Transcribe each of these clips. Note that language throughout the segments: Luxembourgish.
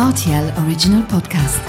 Rtl Original Podcast.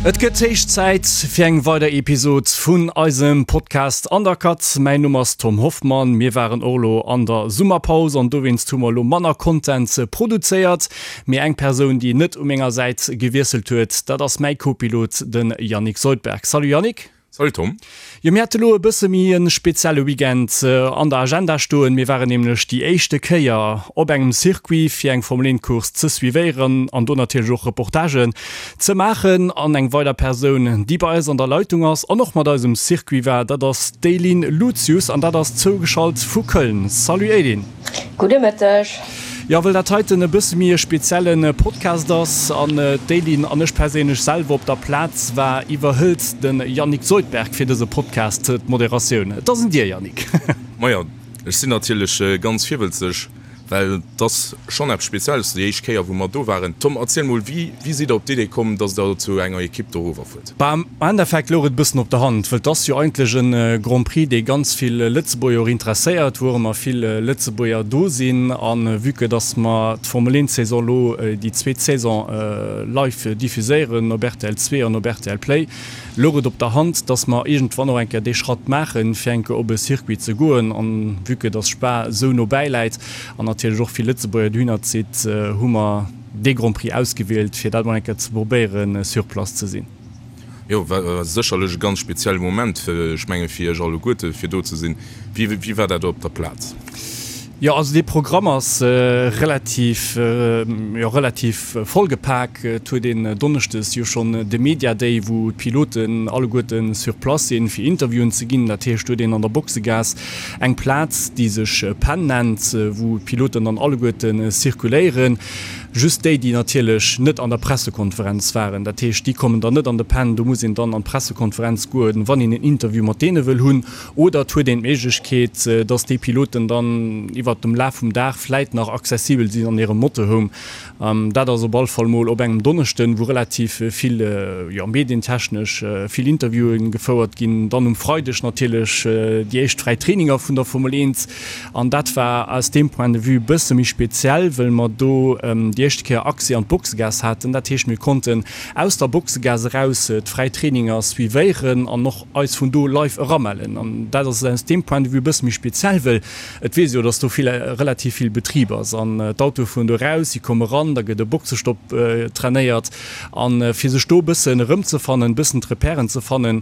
Et gëtt héich Zäit fir eng weider Episod vun eisem Podcast Undercut. Mäin Numm ass Tom Hoffmann. Mir waren och elo an der Summerpaus an dowéinst hu mer elo manner Content produzéiert. Mee eng Persoun, déi net u menger Säit gewiesselt huet, dat ass mäi Co-Pilot, de Yannick Soldberg. Salut Yannick. Salut Tom. Jo, mir hate lo e bësse méi e spezielle Weekend an der Agenda stoen. Mir waren nämlech déi éischte Kéier op engem Circuit fir eng Formel 1 Course ze suivéieren an do natierlech och Reportagen ze maachen. An eng weider Persoun, déi bei eis an der Leitung ass an och mat eis um Circuit war, dat ass d'Eileen Lucius an dat ass zougeschalt vu Köln. Salut Eileen. Gudde Mëtteg. Jo, wëll dat heiten e bësse méi e spezielle Podcast ass an d'Eileen an ech perséinlech selwer op der Plaz war, iwwerhëlt de Yannick Soldberg fir dëse Podcast d'Moderatioun. Et ass un dir, Yannick. Majo, ech sinn natierlech ganz virwëlzeg, well et ass schonn eppes Spezielles, déi éischt Kéier wou mer do waren. Tom, erziel mol, wéi sidd der op d'Idee komm, dass der zu enger Ekipp dorower fuert? Bah, am Endeffekt louch et e bëssen op der Hand, wëll 't ass jo eigentlech e Grand Prix, dee ganz vill Lëtzebuerger och interesséiert, wou och ëmmer vill Lëtzebuerger do sinn. A vue que dass mer d'Formel 1 Saison elo déi zweet Saison live diffuséieren op rtl 2 an op rtl Play, louch et op der Hand, dass mer iergendwann och eng Kéier dee Schratt maachen, fir eng Kéier op e Circuit ze goen. An vue que dass Spa esou no bäi läit an natierlech och vill Lëtzebuerger dohinner zitt, hu mer dee Grand Prix ausgewielt, fir dat mol eng Kéier ze probéieren, sur place ze sinn. Jo, war sécherlech e ganz spezielle Moment, ech menge fir iech alleguerte fir do ze sinn. Wéi war dat op der Plaz? Jo, also dee Programm ass relativ, jo relativ vollgepak. Et huet een donneschdes jo schonn de Media Day, wou d'Piloten alleguerte sur place sinn, fir Interviewen ze ginn. Dat heescht, do huet een an der Boxegaass eng Plaz, déi sech Pen nennt, wou d'Piloten dann alleguerte zirkuléieren. Just déi, déi natierlech net an der Pressekonferenz waren. Dat heescht, déi kommen dann net an de Pen. Do muss een dann an d'Pressekonferenz goen, wann een en Interview mat deene wëll hunn. Oder et huet een d'Méiglechkeet, dass déi Piloten dann iwwert dem Laf vum Dag vläit nach accessibel sinn an hirem Motorhome. Dat ass op all Fall mol op engem Donneschden, wou relativ vill, jo, medientechnesch vill Interviewen gefouert ginn. Dann um Freideg natierlech déi éischt fräi Traininger vun der Formel 1. An dat war aus deem Point de vue e bësse méi speziell, wëll mer do déi éischte Kéier Accès an d'Boxegaass haten. Dat heescht, mir konnten aus der Boxegaass eraus d'fräi Traininger suivéieren an och eis vun do live eramellen. An dat ass aus deem Point de vue e bësse méi speziell, wëll et weess ee jo, dass do vill, relativ vill Betrib ass an d'Autoe fueren do eraus, si komme ran, da gëtt e Boxestopp trainéiert. A fir sech do e bëssen erëmzefannen, e bëssen d'Repèren ze fannen,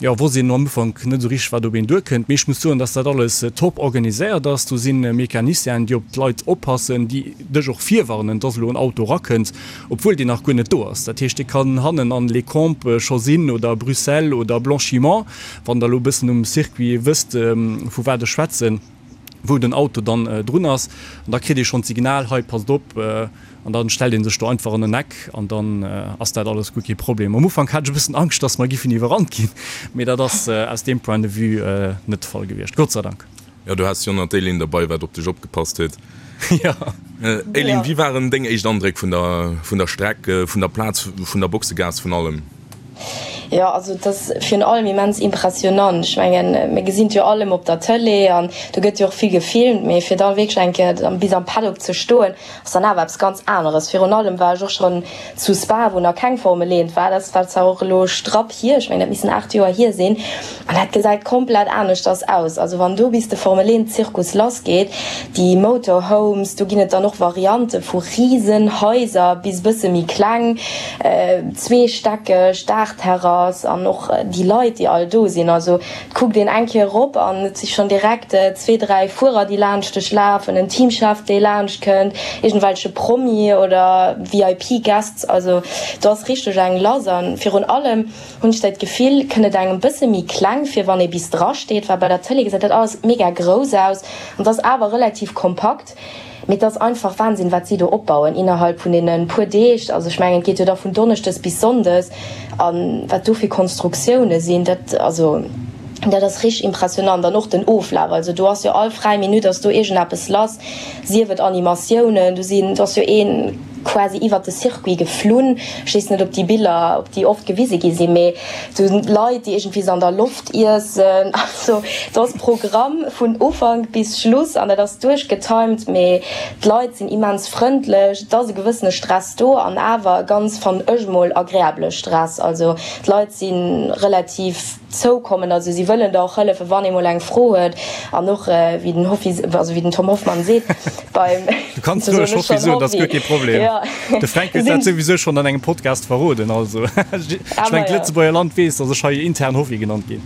jo, wosst een am Ufank net esou richteg, wat op een duerkënnt. Mee ech muss soen, dass dat alles top organiséiert ass. Do si Mecanicienen, déi op d'Leit oppassen, déi dech och virwarnen, dass elo en Auto erakënnt, obwuel deen nach guer net do ass. Dat heescht, dee kann hannen an Les Combes scho sinn oder Bruxelles oder Blanchimont, wann Der elo e bëssen um Circuit wësst, vu wat ech schwätzen, wou den Auto dann drun ass. An da kritt ee schonn d'Signal, hei, passt op. An dann stellt een sech do einfach an en Eck an dann ass dat alles guer kee Problem. Am Ufank hat ech e bëssen Angscht, dass mer giffen iwwerrannt ginn, mee dat ass aus deem Point de vue net de Fall gewiescht, Gott sei Dank. Jo, du haas jo nach d'Eileen derbei, wat op dech opgepasst huet. Jo. Eileen, wéi waren deng éischt Andréck vun der, vun der Streck, vun der Plaz, vun der Boxegaass, vun allem? Jo, also et ass virun allem immens impressionant. Ech mengen, mir gesinn et jo all ëmmer op der Tëlee an do gëtt jo och vill gefilmt, mee fir da wierklech eng Kéier bis am Paddock ze stoen, ass dann awer eppes ganz aneres. Virun allem war ech och schonn zu Spa, wou nach keng Formel 1 war. Dat war zwar och elo strapp hier, ech mengen dat missen 8 Joer hier sinn, an dat gesäit komplett aneschters aus. Also wann do bis de Formel 1 Zirkus lass geet, déi Motorhomes, do ginn et dann och Variante vu risen Haiser bis bësse méi kleng, zweestäckeg, Daachterrass an och déi Leit déi all do sinn. Also Et kuckt een eng Kéier erop an et si schonn direkt zwee, dräi Fuerer, déi laanscht dech lafen, en Teamchef, dee laanscht kënnt, iergendwelche Promi oder VIP-Guests. Also do ass richteg eng lass. A virun allem hunn ech dat Gefill, kënnt et engem bësse méi kleng vir, wann ee bis dra steet, well bei der Tëlee gesäit dat alles mega grouss aus an et ass awer relativ kompakt. Mee et ass einfach Wahnsinn, wat si do opbauen innerhalb vun deene puer Deeg. Also ech mengen, et geet jo da vun Donneschdes bis Sonndes. A wat do fir Konstruktioune sinn, dat, also dat ass richteg impressionant. An och den Oflaf, also do ass jo all fräi Minutt ass do iergendeppes lass, sief et Animatiounen, do sinn, do ass jo ee. quasi iwwert de Circuit geflunn. Ech weess net, ob déi Biller, ob déi oft gewise gi sinn, mee do sinn Leit, déi iergendwéi se an der Loft iessen. Also do ass Programm vun Ufank bis Schluss an dat ass duerchgetimed, mee d'Leit sinn immens frëndlech. Et ass e gewëssene Stress do an awer e ganz, fannen ech mol, agreabele Stress. Also d'Leit si relativ. Zoukommen. Also si wëllen der och hëllefen, wann ee mol eng Fro huet. An och wéi den Hoffi, also wéi den Tom Hoffmann seet, beim, Du kanns roueg Hoffi soen, dat ass guer kee Problem. De Fränk huet dat souwisou schonn an engem Podcast verroden. Also ech mengen, d'Lëtzebuerger Land weess, datt ech hei intern Hoffi genannt ginn.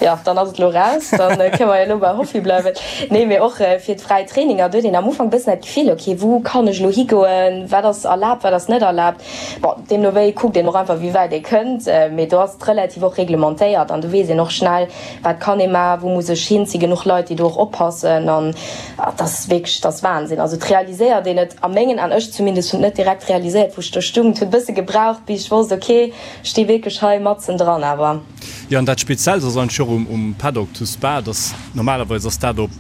Jo, dann ass et elo raus, da kënne mer jo elo bei Hoffi bleiwen. Nee, mee och fir d'fräi Traininger, do huet een am Ufank e bëssen dat Gefill, ok, wou kann ech elo higoen, wat ass erlaabt, wat ass net erlaabt. Bon, deemno wéi kuckt een och einfach, wéi wäit ee kënnt, mee do ass et relativ och reglementéiert an do weess een och schnell, wat kann ee maachen, wou muss ech hin. Et si genuch Leit, déi do och oppassen an et ass wierklech, et ass Wahnsinn. Also et realiséiert een et a mengen An, ech zumindest hunn et net direkt realiséiert, wou ech do stung. Et huet e bësse gebraucht, bis ech wosst, ok, ech sti wierklech hei matzen dran awer. Jo, an dat Speziellt ass eigentlech och um Paddock zu Spa, dass normalerweis ass dat op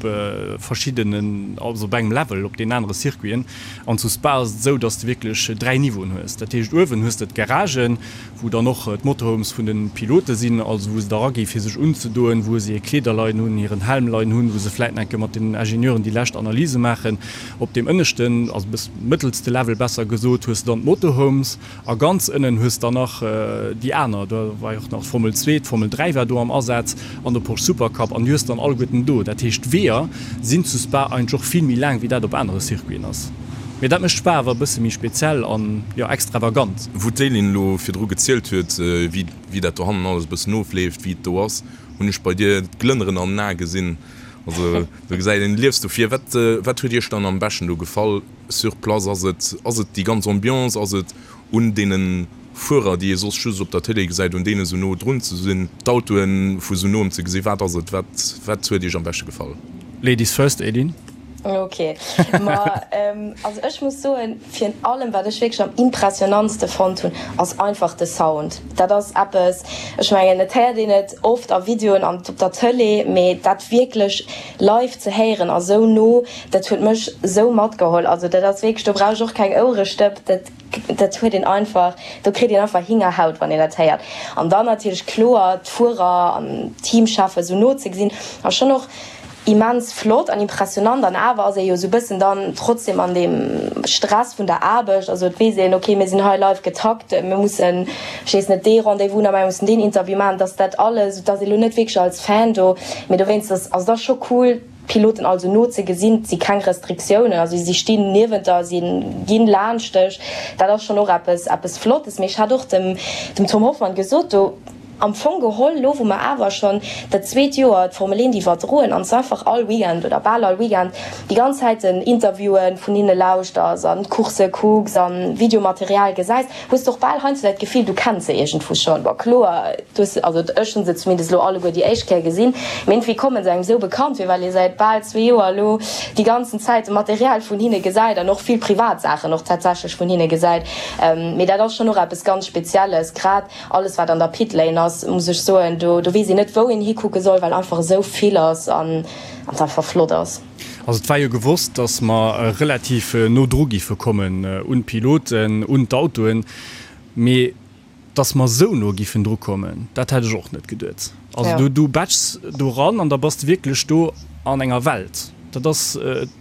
verschiddenen, also op engem Level op deenen anere Circuiten. An zu Spa ass et esou, dass de wierklech 3 Niveauen hues. Dat heescht, uewen hues de d'Garagen, wou dann och d'Motorhomes vun de Pilote sinn, also wou se da ragi fir sech unzedoen, wou se hir Kleeder leien hunn, hiren Helm leien hunn, wou se vläit nach eng Kéier mat den Ingenieuren déi lescht Analyse maachen. Op deem ënneschten, also bëss mëttelste Level besser gesot, hues de dann d'Motorhomes. A ganz ënnen hues dann nach déi aner, do war jo och nach d'Formel 2, d'Formel 3 war do am Asaz an de Porsche Supercup an déi hues dann alleguerten do. Dat heescht d'Weeër sinn zu Spa eigentlech och vill méi laang wéi dat op anere Circuiten ass. Mee dat mécht Spa awer e bësse méi speziell an, jo, extravagant. Wou d'Céline elo virdru gezielt huet, wéi dat dohannen alles e bëssen ofleeft, wéi et do ass, hunn ech bei dir d'Glënneren an den Ae gesinn. Also do gesäit een, du liefs dofir. Wat, wat huet iech dann am beschten do gefall? Sur place ass et, ass et déi ganz Ambiance, ass et un deene Fuerer, déi ee soss just op der Télé gesäit, un deene sou no drun ze sinn, d'Autoe vu sou noem ze gesinn, wat ass et, wat, wat huet Iech am beschte gefall? Ladies first, Edin. Ok, ma also ech muss soen, virun allem wat ech wierklech am impressionantste fonnt hunn, ass einfach de Sound. Dat ass eppes, ech mengen et héiert een et oft a Videoen an op der Tëlee, mee dat wierklech live ze héieren a sou no, Dat huet mech sou matgeholl, also dat ass wierklech, do brauch ech och keng Ouerestëpp, dat dat huet een einfach, do kritt een einfach Hingerhaut wann een dat héiert. An dann natierlech kloer d'Fuerer an d'Teamcheffen sou no ze gesinn ass schonn och immens flott an impressionant an awer ass ee jo sou bëssen dann trotzdem an deem Stress vun der Aarbecht, also et weess een, ok mir sinn hei live getakt, mir mussen, ech weess net, dee Rendez-vous nach maachen, mir mussen deen Interview maachen, dass dat alles, et ass ee lo net wierklech als Fan do, mee dowéinst ass, also et ass scho cool. D'Piloten also no ze gesinn, et si keng Restriktiounen, also si stinn niewent der, si ginn laanscht dech, dat ass schonn och eppes, eppes Flottes. Mee ech hat och dem, dem Tom Hoffmann gesot, do am Fong geholl, elo wou mer awer schonn dat zweet Joer d'Formel 1 iwwerdroen an s einfach all Weekend oder bal all Weekend déi ganz Zäiten Interviewen vun hinne lauschters an d'Coursse kucks a Videomaterial gesäis, Hues de och bal heiansdo dat Gefill, du kenns se iergendwou schonn? Bon, kloer, du hues se, also ech hunn se zumindest elo alleguer déi éischt Kéier gesinn, mee iergendwéi komme se engem esou bekannt vir, well ee säit bal zwee Joer elo déi ganzen Zäit de Material vun hinne gesäit an och vill privat Saachen och tatsächlech vun hinne gesäit. Mee dat ass schonn och eppes ganz Spezielles, grad alles wat an der Pitlane ass, muss ech soen, do do weess een net wou een hikucke soll, well einfach esou vill ass an et einfach flott ass. Also et war jo gewosst, datt mer relativ no dru giffe kommen un d'Piloten, un d'Autoen, mee datt mer esou no giffen dru kommen, dat hätt ech och net geduet. Also du du batschs do ran an da bass de wierklech do an enger Welt. Dat ass,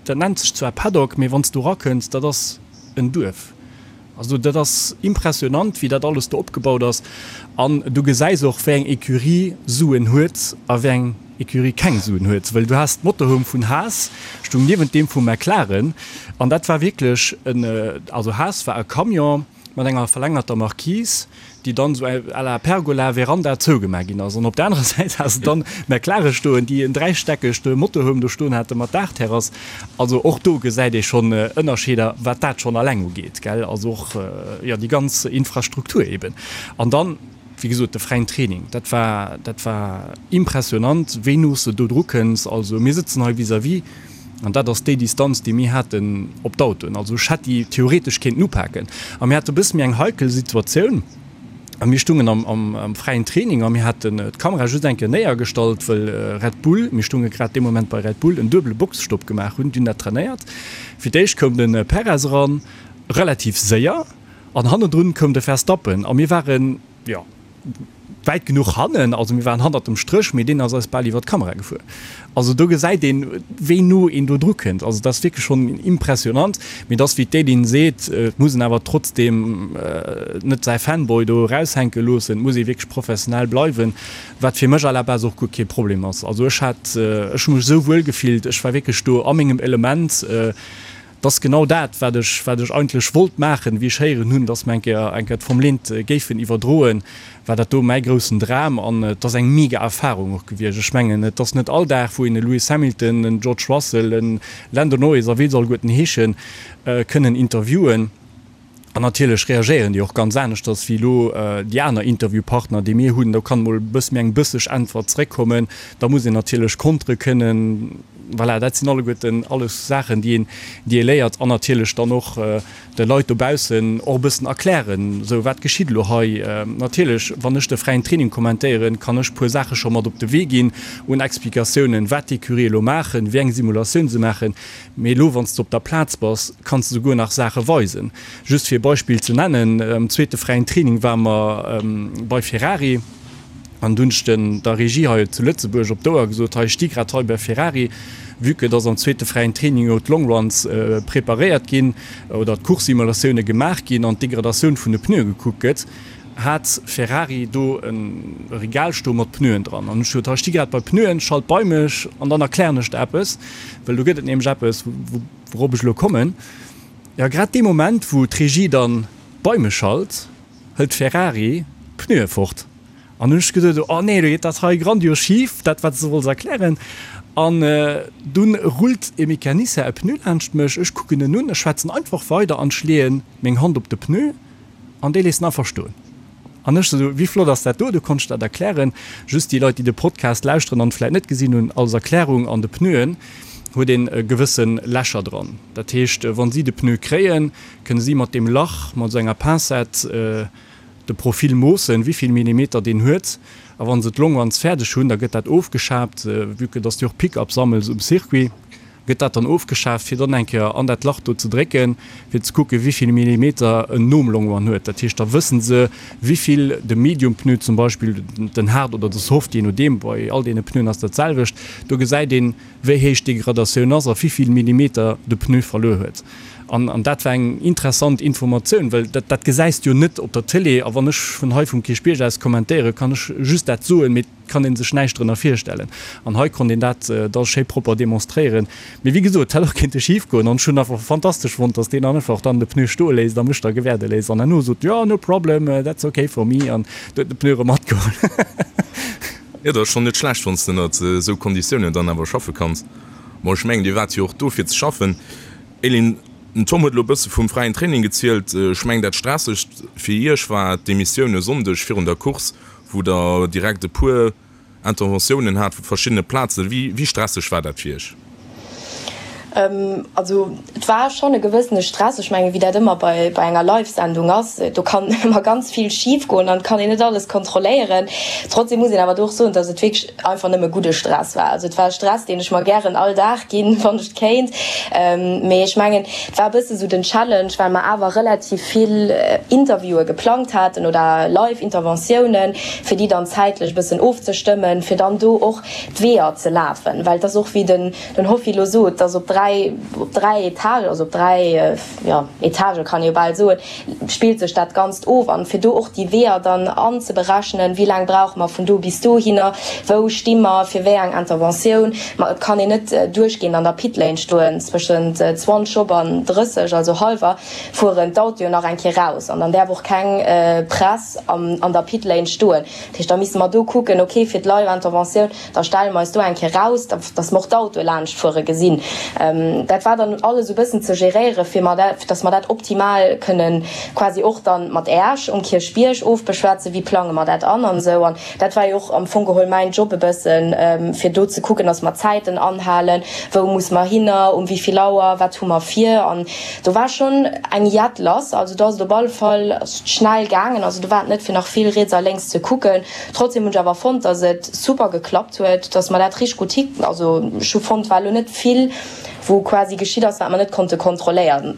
dat nennt sech zwar Paddock, mee wann s du erakënns, dat ass en Duerf. Also dat ass impressionant, wéi dat alles do opgebaut ass. An du gesäis och, wéi eng Ecurie Suen huet a wéi eng Ecurie keng Suen huet. Well du has d'Motorhome vun Haas stung niewent deem vu McLaren. An dat war wierklech en, also Haas war e Camion mat enger verlängerter Marquise, déi dann esou à la Pergola, Veranda zougemaach ginn ass. An op der anerer Säit has de dann McLaren stoen, déi en dräistäckegt Motorhome do stoen hate mat Daachterrass. Also och do gesäit ee schonn Ënnerscheeder, wat dat schonn alleng ugeet, gell. Also och, jo, déi ganz Infrastruktur eben. An dann, wéi gesot, de fräien Training, dat war, dat war impressionant, wéi no s de do dru kënns. Also mir sëtzen hei vis-à-vis. An dat ass déi Distanz, déi mir haten op d'Autoen. Also ech hätt déi theoretesch kéinten upaken. A mir hate e bësse méi eng heikel Situatioun. A mir stungen am, am, am fräien Training a mir haten d'Kamera just eng Kéier néiergestallt, wëll Red Bull, mir stunge grad dee Moment bei Red Bull, en duebele Boxestopp gemaach hunn. Déi hunn dat trainéiert. Fir d'éischt koum de Perez eran. Relativ séier an hannendrun koum de Verstappen a mir waren, jo, wäit genuch hannen, also mir waren hannert dem Stréch, mee deen ass eis bal iwwer d'Kamera gefuer. Also do gesäit een, wéi no een do dru kënnt. Also dat ass wierklech schonn impressionant. Mee et ass wéi d'Eileen seet, et muss een awer trotzdeem net säi Fanboy do eraushänke loossen, et muss ee wierklech professionell bleiwen, wat fir mech à la base och guer kee Problem ass. Also ech hat, ech hu mech esou wuel gefillt, ech war wierklech do a mengem Element. Et ass genau dat, wat ech, wat ech eigentlech wollt maachen, wéi ech héieren hunn, dass mer eng Kéier, eng Kéier d'Formel 1 géifen iwwerdroen, war dat do mäi groussen Dram an et ass eng mega Erfahrung och gewiescht. Ech mengen, et ass net all Dag, wou een e Lewis Hamilton, en George Russell, e Lando Norris a wéi se alleguerten heeschen, kënnen interviewen. An natierlech reagéieren déi och ganz aneschters wéi elo déi aner Interviewpartner, déi mir hunn. Do kann emol e bësse méi eng bësseg Äntwert zeréckkommen. Da muss een natierlech kontere kënnen. Voilà, dat sinn alleguerten alles Saachen, déi een, déi ee léiert. An natierlech dann och de Leit dobaussen och e bëssen erklären, esou wat geschitt elo hei. Natierlech, wann ech de fräien Training kommentéieren, kann ech e puer Saache scho mat op de Wee ginn un Explikatiounen, wat d'Ecurie elo maachen, wéi eng Simulatioun se maachen. Mee elo, wann s de op der Plaz bass, kanns de souguer nach Saache weisen. Just fir e Beispill ze nennen, Am zweete fräien Training ware mer bei Ferrari an du hunn ech den der Regie hei zu Lëtzebuerg op d'Ouer gesot, hei, ech sti grad hei bei Ferrari, vue que dass am zweete fräien Training jo d'Longruns preparéiert ginn oder d'Course-Simulatioune gemaach ginn an d'Degradatioun vun de Pneue gekuckt gëtt. Hat Ferrari do e Regal stoe mat Pneuen dran an ech sot, hei sti grad bei Pneuen, schalt bei mech an dann erklären ech der eppes, well do gëtt et nämlech eppes, wourop ech elo kommen. Jo, grad dee Moment, wou d'Regie dann bei mech schalt, hëlt Ferrari d'Pneue fort an hunn ech geduet, oh nee, elo geet dat hei grandios schif, dat wat s de wollts erklären. An dunn rullt e Mecanicien e Pneu laanscht mech, ech kucken en un, ech schwätzen einfach weider an ech leeën meng Hand op de Pneu. An déi léissen einfach stoen. An ech sou, wéi flott ass dat do? Du konntst dat erklären. Just déi Leit, déi de Podcast lauschteren an et vläit net gesinn hunn, als Erklärung, An de Pneuen huet een e gewësse Lächer dran. Dat heescht, wa si de Pneu kréien, kënne si mat deem Lach, mat esou enger Pincette, de Profil moossen, wéi vill Millimeter deen huet. A wa se d'Longruns fäerdeg hunn, da gëtt dat ofgeschaabt, vue que dass du och Pick-up sammels um Circuit. Gëtt dat dann ofgeschaaft, fir dann eng Kéier an dat Lach do ze drécken, fir ze kucken, wéi vill Millimeter en nom Longrun huet. Dat heescht, da wësse se, wéi vill de Medium-Pneu zum Beispill, den Hard oder de Soft, jee nodeem, bei all deene Pneuen ass dat d'selwecht, do gesäit een, wéi héich d'Degradatioun ass a wéi vill Millimeter de Pneu verluer huet. An, an dat war eng interessant Informatioun, well dat, dat gesäis de jo net op der Tëlee. A wann ech vun hei vum Kierchbierg aus kommentéieren, kann ech just dat soen, mee kann een sech näischt drënner virstellen. An hei konnt een dat da schéi propper demonstréieren. Mee wéi gesot, et hätt och kéinte schif goen. An ech hunn einfach fantastesch fonnt, dass deen einfach dann de Pneu stoe léisst a mech da gewäerde léisst an herno sot, jo, no problem, that's okay for me an huet de Pneu erëm matgeholl. Jo, dat ass schonn net schlecht, wann s de ënnert esou Konditiounen dann awer schaffe kanns. Bon, ech mengen, Dir waart jo och do fir ze schaffen. Elin, den Tom huet elo e bësse vum fräien Training gezielt. Ech mengen, dat Stressegst fir Iech war d'Emissioun e Sonndeg virun der Course, wou Der direkt e puer Interventiounen hat vu verschiddene Plazen. Wéi stresseg war dat fir Iech? Also et war schonn e gewëssene Stress. Ech mengen, wéi dat ëmmer bei enger Live-Sendung ass, do kann ëmmer ganz vill schif goen an et kann een net alles kontrolléieren. Trotzdem muss een awer do och soen, datt et wierklech einfach nëmme gudde Stress war. Also et war e Stress, deen ech mer gären all Dag ginn, wann ech et kéint. Mee ech mengen, et war e bësse sou den Challenge, well mer awer relativ vill Interviewe geplangt haten oder Live-Interventiounen, fir déi dann zäitlech e bëssen ofzestëmmen, fir dann do och d'Weeër ze lafen. Well et ass och, wéi den Hoffi elo sot, et ass op 3, op 3 Etagen, also op 3, jo, Etagë kann ee jo bal soen, spillt sech dat Ganzt of. An fir do och déi Weeër dann anzeberechnen, wéi laang brauche mer vun do bis dohinner, wou sti mer fir wéi eng Interventioun. Ma et kann een net duerchgehend an der Pitlane stoen, zwëschent 20 op an 30, also hallwer, fueren d'Autoen nach eng Kéier raus an dann däerf och keng Press an der Pitlane stoen. Dat heescht, da misste mer do kucken, okay, fir d'Live-Interventioun, Da stelle mer eis do eng Kéier raus, dass mer och d'Autoe laanschtfuere gesinn. Dat war dann alles e bëssen ze geréieren, fir mer dat, dass mer dat optimal kënnen quasi och dann mat Äech um Kierchbierg ofbeschwätzen, wéi plange mer dat an an esou. An dat war jo och am Fong geholl mäin Job e bëssen, fir do ze kucken, dass mer d'Zäiten anhalen, wou muss mer hinner, um wéi vill Auer, wat hu mer vir. An do war schonn eng Jett lass. Also do ass et op alle Fall schnell gaangen. Also do war et net fir nach vill riets a lénks ze kucken. Trotzdem hunn ech awer fonnt, dass et super geklappt huet, dass mer dat richteg gutt hi, also ech hu fonnt, war elo net vill. wou quasi geschitt ass, wat mer net konnte kontrolléieren.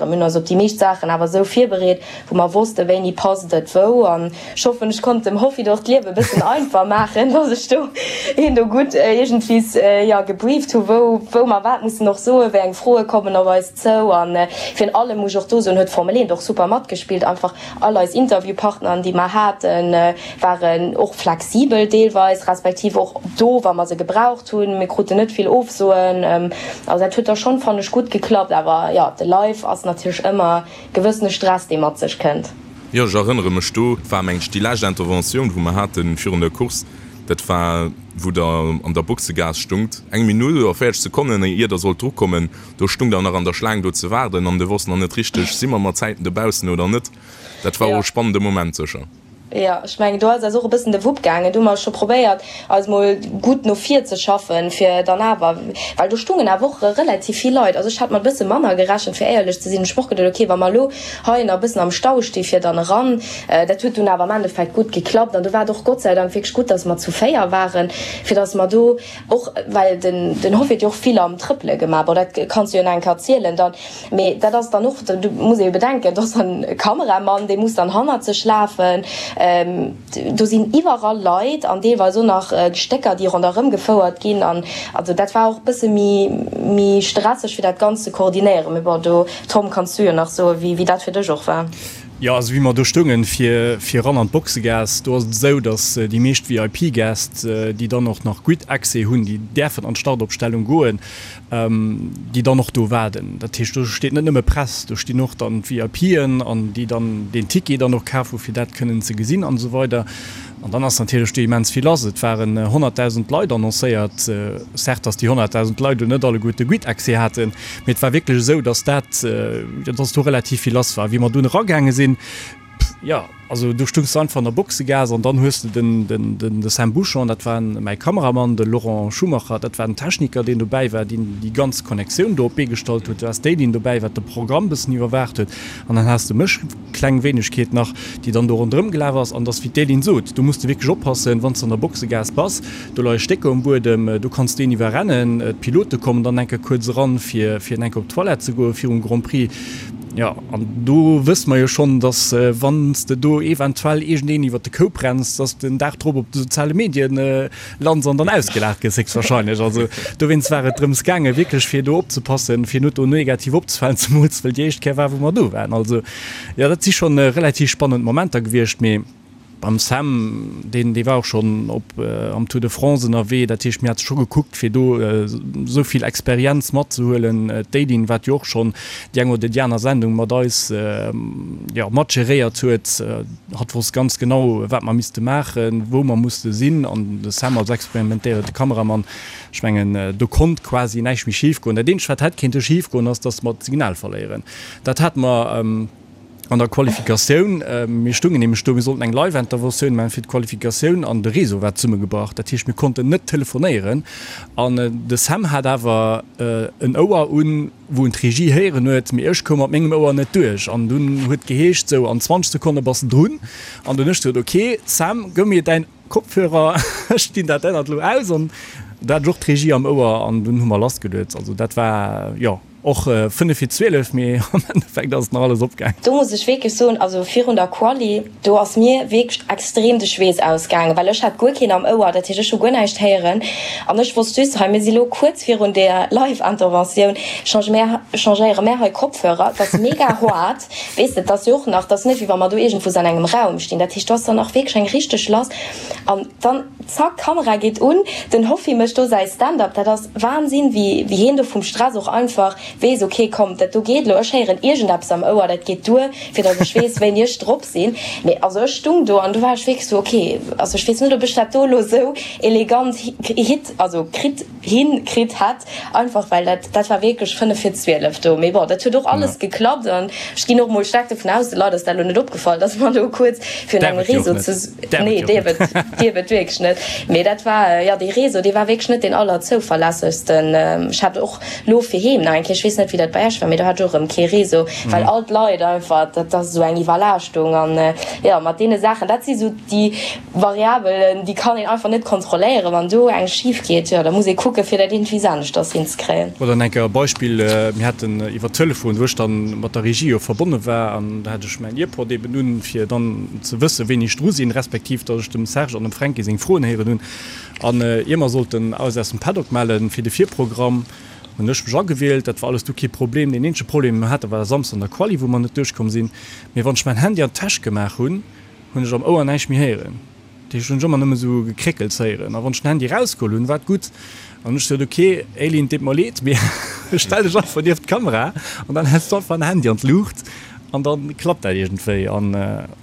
Mir hunn eis op déi meescht Saachen awer esou virbereet, wou mer wossten, wéini passt et wou. An ech hoffen, ech konnt dem Hoffi do och d'Liewe e bëssen einfach maachen, dass ech do hien do gutt iergendwies, jo, gebrieft hu wou, wou mer wat mussen och soen, wéi eng Froe kommen op eis zou. An virun allem muss ech och do soen, huet d'Formel 1 och super matgespillt. Einfach all eis Interviewpartneren, déi mer haten, waren och flexibel deelweis, respektiv och do, wa mer se gebraucht hunn. Mir kruten net vill Ofsoen. Also dat huet da schonn, fannen ech, gutt geklappt. Awer jo, de Live ass natierlech ëmmer gewëssene Stress, dee mat sech kënnt. Jo, ech erënnere mech do, et war meng ech déi lescht Interventioun, wou mer haten virun der Course, dat war wou der an der Boxegaass stungt, eng Minutt oder 40 Sekonnen ier der sollt drukommen, do stung der nach an der Schlaang do ze waarden an de wosst nach net richteg, si mer mat Zäiten dobaussen oder net. Dat war och e spannende Moment sécher. Jo, ech mengen, do ass eis och e bëssen de Wupp gaangen. Do hu mer scho probéiert, eis mol gutt no vir ze schaffen, fir dann awer, well do stungen awer och relativ vill Leit. Also ech hat mat e bësse manner gerechent, fir éierlech ze sinn. Ech hu mer och geduet, okay, wa mer elo hei nach e bëssen am Stau sti fir dann eran. Dat huet dunn awer am Endeffekt gutt geklappt. An do war et och Gott sei Dank wierklech gutt, dass mer zu 4 waren, fir dass mer do och, well den Hoff huet jo och vill am Trëppele gemaach, bon, dat kanns du jo nach eng Kéier erzielen dann. Mee dat ass dann och, do muss ee jo bedenken, do ass dann e Kameramann, dee muss dann hannert sech lafen. Do sinn iwwerall Leit an deelweis och nach Stécker, déi ronderëm gefouert ginn. An also dat war och e bësse méi, méi stresseg, fir dat Ganzt ze koordinéieren. Mee bon, do, Tom, kanns du jo nach soen, wéi, wéi dat fir dech och war. Jo, also wéi mer do stoungen, fir, fir eran an d'Boxegaass, do ass et esou, datt déi meescht VIP-Gäst, déi dann och nach gutt Accès hunn, déi däerfen an d'Startopstellung goen. déi dann och do waarden. Dat heescht, do steet net nëmme Press, do stinn och dann d'VIPen an déi dann deen Ticket dann och kaf hu fir dat kënnen ze gesinn an esou weider. An dann ass natierlech do immens vill lass. Et waren 100.000 Leit annoncéiert. Certes, datt déi 100.000 Leit elo net alleguerte gutt Accès haten, mee et war wierklech esou, datt dat, jo, datt do relativ vill lass war. Wéi mer dunn eragaange sinn, Jo, also do stungs de einfach an der Boxegaass an dann hues de den, den, den, de Sam Bouchon, dat war mäi Kameramann, de Laurent Schumacher, dat war den Techniker, deen dobäi war, deen déi ganz Connectioun do op d'Bee gestallt huet. Du has d'Éline dobäi, wat de Programm bëssen iwwerwaacht huet an dann has de mech, kleng Wéinegkeet nach, déi dann do ronderëm gelaf ass. An et ass wéi d'Éline sot, do muss de wierklech oppassen, wann s de an der Boxegaass bass, do leie Stécker um Buedem, do kanns de een iwwerrennen. D'Pilote kommen dann eng Kéier kuerz eran, fir, fir eng Kéier op d'Toilette ze goen virum Grand Prix. Jo, an do wësse mer jo schonn, dass wann s de do eventuell iergendeen iwwer de Koup renns, dass de den Dag drop op de soziale Medien lands an dann ausgelaacht gëss, héchstwahrscheinlech. Also dowéinst war et drëms gaangen, wierklech fir do opzepassen, fir net do negativ opzefalen, zemools well déi éischt Kéier war, wou mer do waren. Also jo, dat si schonn relativ spannend Momenter gewiescht, mee. Beim Sam, deen dee war och schonn op am Tour de France ënnerwee, dat heescht mir hate scho gekuckt fir do esou vill Experienz matzehuelen. D'Aideen, wat jo och schonn déi eng oder déi aner Sendung mat eis jo mat geréiert huet, hatt wosst ganz genau wat mer misste maachen, wou mer musste sinn an de Sam als experimentéierte Kameramann, ech mengen do konnt quasi näischt méi schif goen. Dat eenzegt wat hätt kéinte schif goen ass, datt mer d'Signal verléieren. Dat hate mer. An der Qualifikatioun, mir stungen nämlech do, mir sollten eng Live-Interventioun maachen fir d'Qualifikatioun an de Réseau war zesummegebrach. Dat heescht, mir konnten net telefonéieren an de Sam hat awer en Ouer un, wou en d'Regie héieren huet, mee ech koum mat mengem Ouer net duerch. An dunn huet geheescht, sou an 20 Sekonne bass de drun. An dunn ech gesot, ok Sam, gëff mir däin Kopfhörer, ech dinn dat ännert elo aus. An do hat ech och d'Regie am Ouer an dunn hu mer lassgeluet. Also dat war, jo. Och 5 vir 12, mee am Endeffekt ass et nach alles opgaang. Do muss ech wierklech soen, also virun der Quali, do ass mir wierklech extrem de Schweess ausgaangen, well ech hat guer keen am Ouer, dat heescht ech hu guer näischt héieren an ech wosst just, hei mir si lo kuerz virun der Live-Interventioun, change mär, changéiere mär hei Kopfhörer, et ass mega hoart, weess de, et ass jo och nach, et ass net wéi wa mer do iergendwou an engem Raum stinn, dat heescht do ass dann och wierklech eng richteg lass an dann zack, Kamera geet un, den Hoffi mécht do säi Stand-up, dat ass Wahnsinn, wéi wéi heen do vum Stress och einfach weess, ok komm, dat do geet elo, ech héieren iergendeppes am Ouer, dat geet duer, fir datt ech weess, wéini ech drop sinn. Mee also ech stung do an du war ech wierklech sou, ok, also ech weess net, ob ech dat do elo sou elegant hit, also kritt, hin kritt hätt, einfach well dat dat war wierklech 5 vir 12 do. Mee bon, dat huet och alles geklappt an ech ginn och mol staark dovun aus, de Leit ass dat elo net opgefall, datt mer do kuerz virun engem Réseau ze. Nee, dierf et, dierf et wierklech net. Mee dat war, jo, dee Réseau, dee war wierklech net deen allerzouverlässegsten. Ech hat och lo fir heem nach eng Kéier. Ech weess net, wéi dat bei Iech war, mee do hat ech och erëm kee Réseau, well all d'Leit einfach, dat ass esou eng Iwwerlaaschtung. An jo, mat deene Saachen, dat si sou déi Variabelen, déi kann een einfach net kontrolléieren. Wann do eng schif geet, jo, da muss ee kucke fir dat iergendwéi aneschters hinzekréien. Oder eng Kéier e Beispill, Mir haten iwwer Telefon, wou ech dann mat der Regie jo verbonne war, an da hat ech mäin Earpod eben un, fir dann ze wëssen, wéini ech dru sinn, respektiv datt ech dem Serge an dem Fränki seng Froen héieren hunn. An ier mer sollten eis aus dem Paddock mellen fir de Virprogramm, hunn ech mech agewielt. Dat war alles du kee Problem. Deen eenzege Problem, dee mer haten, war Samsden an der Quali, wou mer net duerchkomm sinn. Mee wann ech mäin Handy an d'Täsch gemaach hunn, hunn ech am Ouer näischt méi héieren. Dat heescht, hunn ech ëmmer nëmme sou Gekréckels héieren. A wann ech den Handy erausgeholl hunn, war et gutt. An hunn ech gesot, ok Aileen, et deet mer leed, mee stell dech einfach nieft d'Kamera an dann häls du einfach den Handy an d'Luucht an da klappt dat iergendwéi. An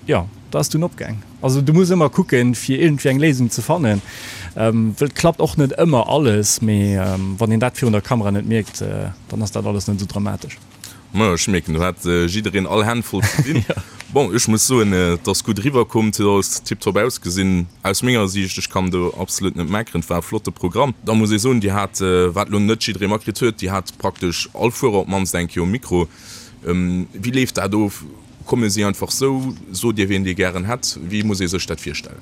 jo, da ass dunn opgaang. Also du muss ëmmer kucken, fir iergendwéi eng Léisung ze fannen, wëll et klappt och net ëmmer alles, mee wann een dat virun der Kamera net mierkt, dann ass dat alles net esou dramatesch. Majo, ech mierken, do hat jiddereen all Hänn voll ze dinn. Bon, ech muss soen, et ass gutt eriwwer komm, et huet alles tiptop ausgesinn aus menger Siicht. Ech kann do absolut net meckeren, et war e flotte Programm. Da muss ee soen, Dir hat, wat elo net jidderee matkritt huet, Dir hat praktesch all Fuerer op d'mannst eng Kéier um Mikro. Wéi leeft dat of? Komme si einfach sou? Sot Dir wien Dir gären hätt? Wéi muss ee sech dat virstellen?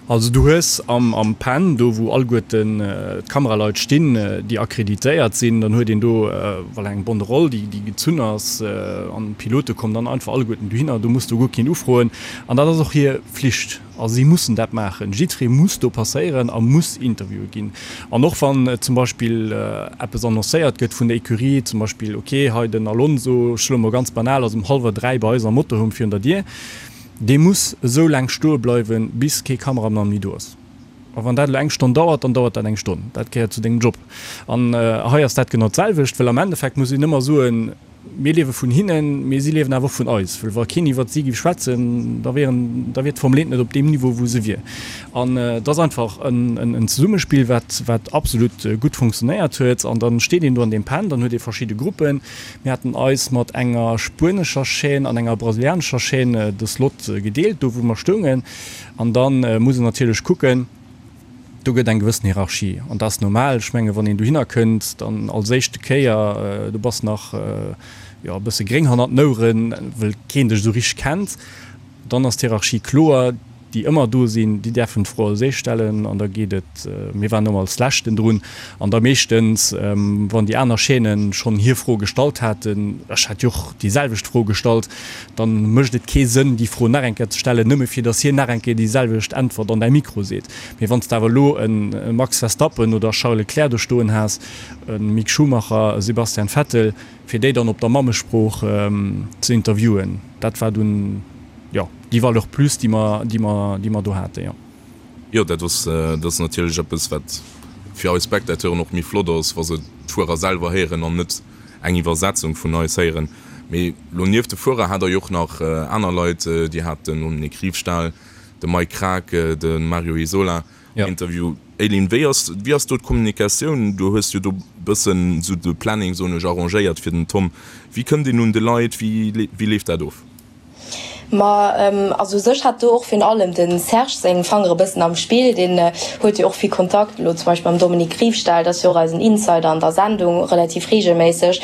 Also du hues am Pen, do wou alleguerten d'Kameraleit stinn, déi akkreditéiert sinn, dann huet een do voilà eng Banderole, déi gezunn ass an d'Pilote kommen dann einfach alleguerten dohinner. Do muss du guer keen ufroen an dat ass och hir Flicht. Also si mussen dat maachen. Jiddweree muss do passéieren a muss interviewe ginn. An och wann zum Beispill eppes annoncéiert gëtt vun der Ecurie, zum Beispill, ok, hei den Alonso, ech soe mol ganz banal, ass um hallwer 3 bei eis am Motorhome virun der Dier, dee muss esou laang stoe bleiwen, bis kee Kameramann méi do ass. A wann dat elo eng Stonn dauert, dann dauert dat eng Stonn. Dat gehéiert zu dengem Job. An hei ass dat genau d'selwecht, well am Endeffekt muss een ëmmer soen, Mir liewe vun hinnen, mee si liewen awer och vun eis. Well wa keen iwwert si géif schwätzen, da wieren, da wier d'Formel 1 net op deem Niveau, wou se wier. An et ass einfach en Zesummespill, wat, wat absolut gutt funktionéiert huet. An da steet een do an deem Pen, dann huet ee verschidde Gruppen. Mir haten eis mat enger spuenescher Chaîne an enger brasilianescher Chaîne de Slot gedeelt, do wou mer stoungen. An da muss een natierlech kucken, Do gëtt eng gewëssen Hierarchie an dat ass normal. Ech menge wann een dohinner kënnt, dann als éischte Kéier, du bass nach jo e bësse gréng hannert den Oueren, wëll keen dech esou richteg kennt, dann ass d'Hierarchie kloer. Déi ëmmer do sinn, déi däerfen d'Fro als éischt stellen an da geet et, mir waren ëmmer als Leschten drun an da meeschtens, wann déi aner Chaînen schonn hir Fro gestallt haten, ech hat jo och déi selwecht Fro gestallt, dann mécht et kee Sënn déi Fro nach eng Kéier ze stellen, nëmme fir datt hien nach eng Kéier déi selwecht Äntwert an däi Mikro seet. Mee wann s de awer elo e Max Verstappen oder e Charles Leclerc do stoen has, e Mick Schumacher, e Sebastian Vettel, fir déi dann op der Mammesprooch ze interviewen, dat war dunn, jo, déi Valeur plus, déi mer, déi mer, déi mer do haten, jo. Jo, dat ass, dat ass natierlech eppes, wat fir eis Spectateuren och méi flott ass, wa se d'Fuerer selwer héieren an net eng Iwwersetzung vun eis héieren. Mee lo nieft de Fuerer hat der jo och nach aner Leit, Dir hat den Dominique Riefstahl, de Mike Krack, de Mario Isola am Interview. Eileen, wéi ass, wéi ass do d'Kommunikatioun? Du hues jo do bëssen esou de Planning, soen ech, arrangéiert fir den Tom. Wéi kënnt een un de Leit? Wéi, wéi leeft dat of? Ma also u sech hat do och virun allem de Serge seng Fangere bëssen am Spill. Deen huet jo och vill Kontakt elo zum Beispill mam Dominique Riefstahl, dat ass jo och eisen Insider an der Sendung, relativ reegelméisseg,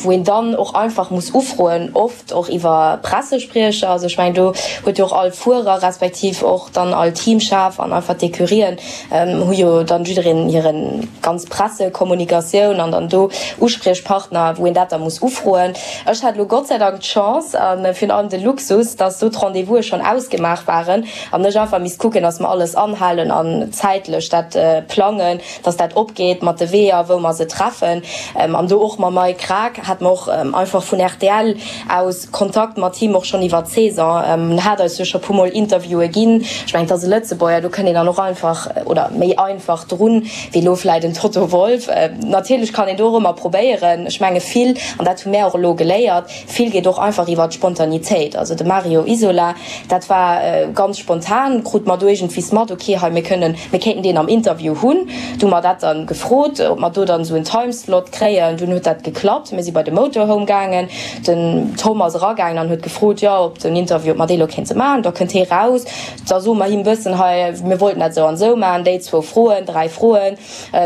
wou een dann och einfach muss ufroen, oft och iwwer Pressespriecher. Also ech mengen do huet jo och all Fuerer respektiv och dann all Teamchef an einfach d'Ecurien hu jo dann jiddereen hiren ganz Pressekommunikatioun an dann do Uspriechpartner, wou een dat da muss ufroen. Ech hat elo Gott sei Dank d'Chance a virun allem de Luxus, dass do d'Rendez-vouse schonn ausgemaach waren an ech einfach misst kucken, dass mer alles anhalen an zäitlech dat plangen, dass dat opgeet mat de Weeër, wou mer se treffen. An do och mam Mike Krack hate mer och einfach vun rtl aus Kontakt mat him, och schonn iwwer d'Saison. En hat eis jo scho puermol Interviewe ginn. Ech mengen, et ass e Lëtzebuerger, do kënnt een dann och einfach oder méi einfach drun, wéi elo vläit en Toto Wolff. Natierlech kann een do och ëmmer probéieren. Ech menge vill, an dat hu mär och elo geléiert, vill geet och einfach iwwer d'Spontanitéit. Also de. Mario Isola. Dat war ganz spontan, krute mer do iergendwees mat, ok, hei mir kënnen, mir kéinten deen am Interview hunn. Du hu mer dat dann gefrot, ob mer do dann esou en Timeslot kréien. Dunn huet dat geklappt, mir si bei de Motorhome gaangen, den Tom ass eragaangen an huet gefrot, jo, ob den Interview, ob mer dee lo kéinte maachen. Da kënnt hee raus, da soe mer him bëssen, hei mir wollten dat esou an esou maachen, déi zwou Froen, 3 Froen.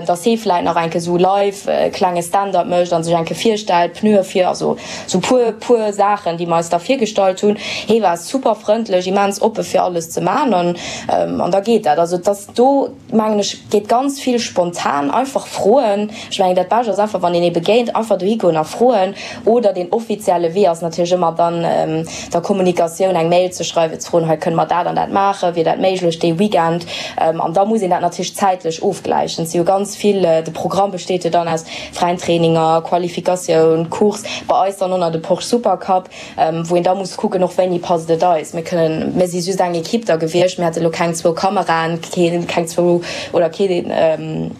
dass hee vläit nach enke sou live e klenge Stand-up mécht a sech enke virstellt, Pneue vir, also sou puer, puer Saachen, déi mer eis da virgestallt hunn. Hee war super frëndlech, immens oppe fir alles ze man an an da geet dat. Also et ass do, mengen ech, geet ganz vill spontan, einfach froen. Ech mengen dat Bescht ass einfach, wann een ee begéint, einfach dohi goen a froen. Oder deen offizielle Wee ass natierlech ëmmer dann der Kommunikatioun eng Mail ze schreiwen, ze froen, hei kënne mer dat an dat maachen, wier dat méiglech dee Weekend? An da muss een dat natierlech zäitlech ofgläichen. Et si jo ganz vill, de Programm besteet jo dann aus fräien Traininger, Qualifikatioun, Course, bei eis dann och nach de Porsche Supercup, wou een da muss kucken och wéini passt et eis. Mir kënnen, mir si just eng Ekipp da gewiescht, mir hate lo keng zwou Kameraen, keen, keng zwou oder keen,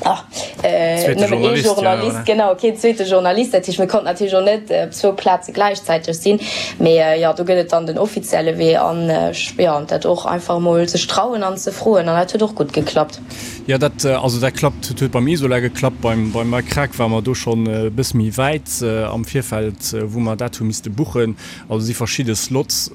Nëmmen ee Journalist, genau, keen zweete Journalist. Dat heescht, mir konnten natierlech och net op zwou Plaze gläichzäiteg sinn. Mee jo, do gëtt et dann den offizielle Wee an jo, dat och einfach emol sech trauen an ze froen an dat huet och gutt geklappt. Jo, dat, also dat klappt, dat huet beim Isola geklappt. Beim, beim Mike Krack ware mer do schonn e bësse méi wäit am Virfeld, wou mer dat hu misste buchen. Also si verschidde Slots.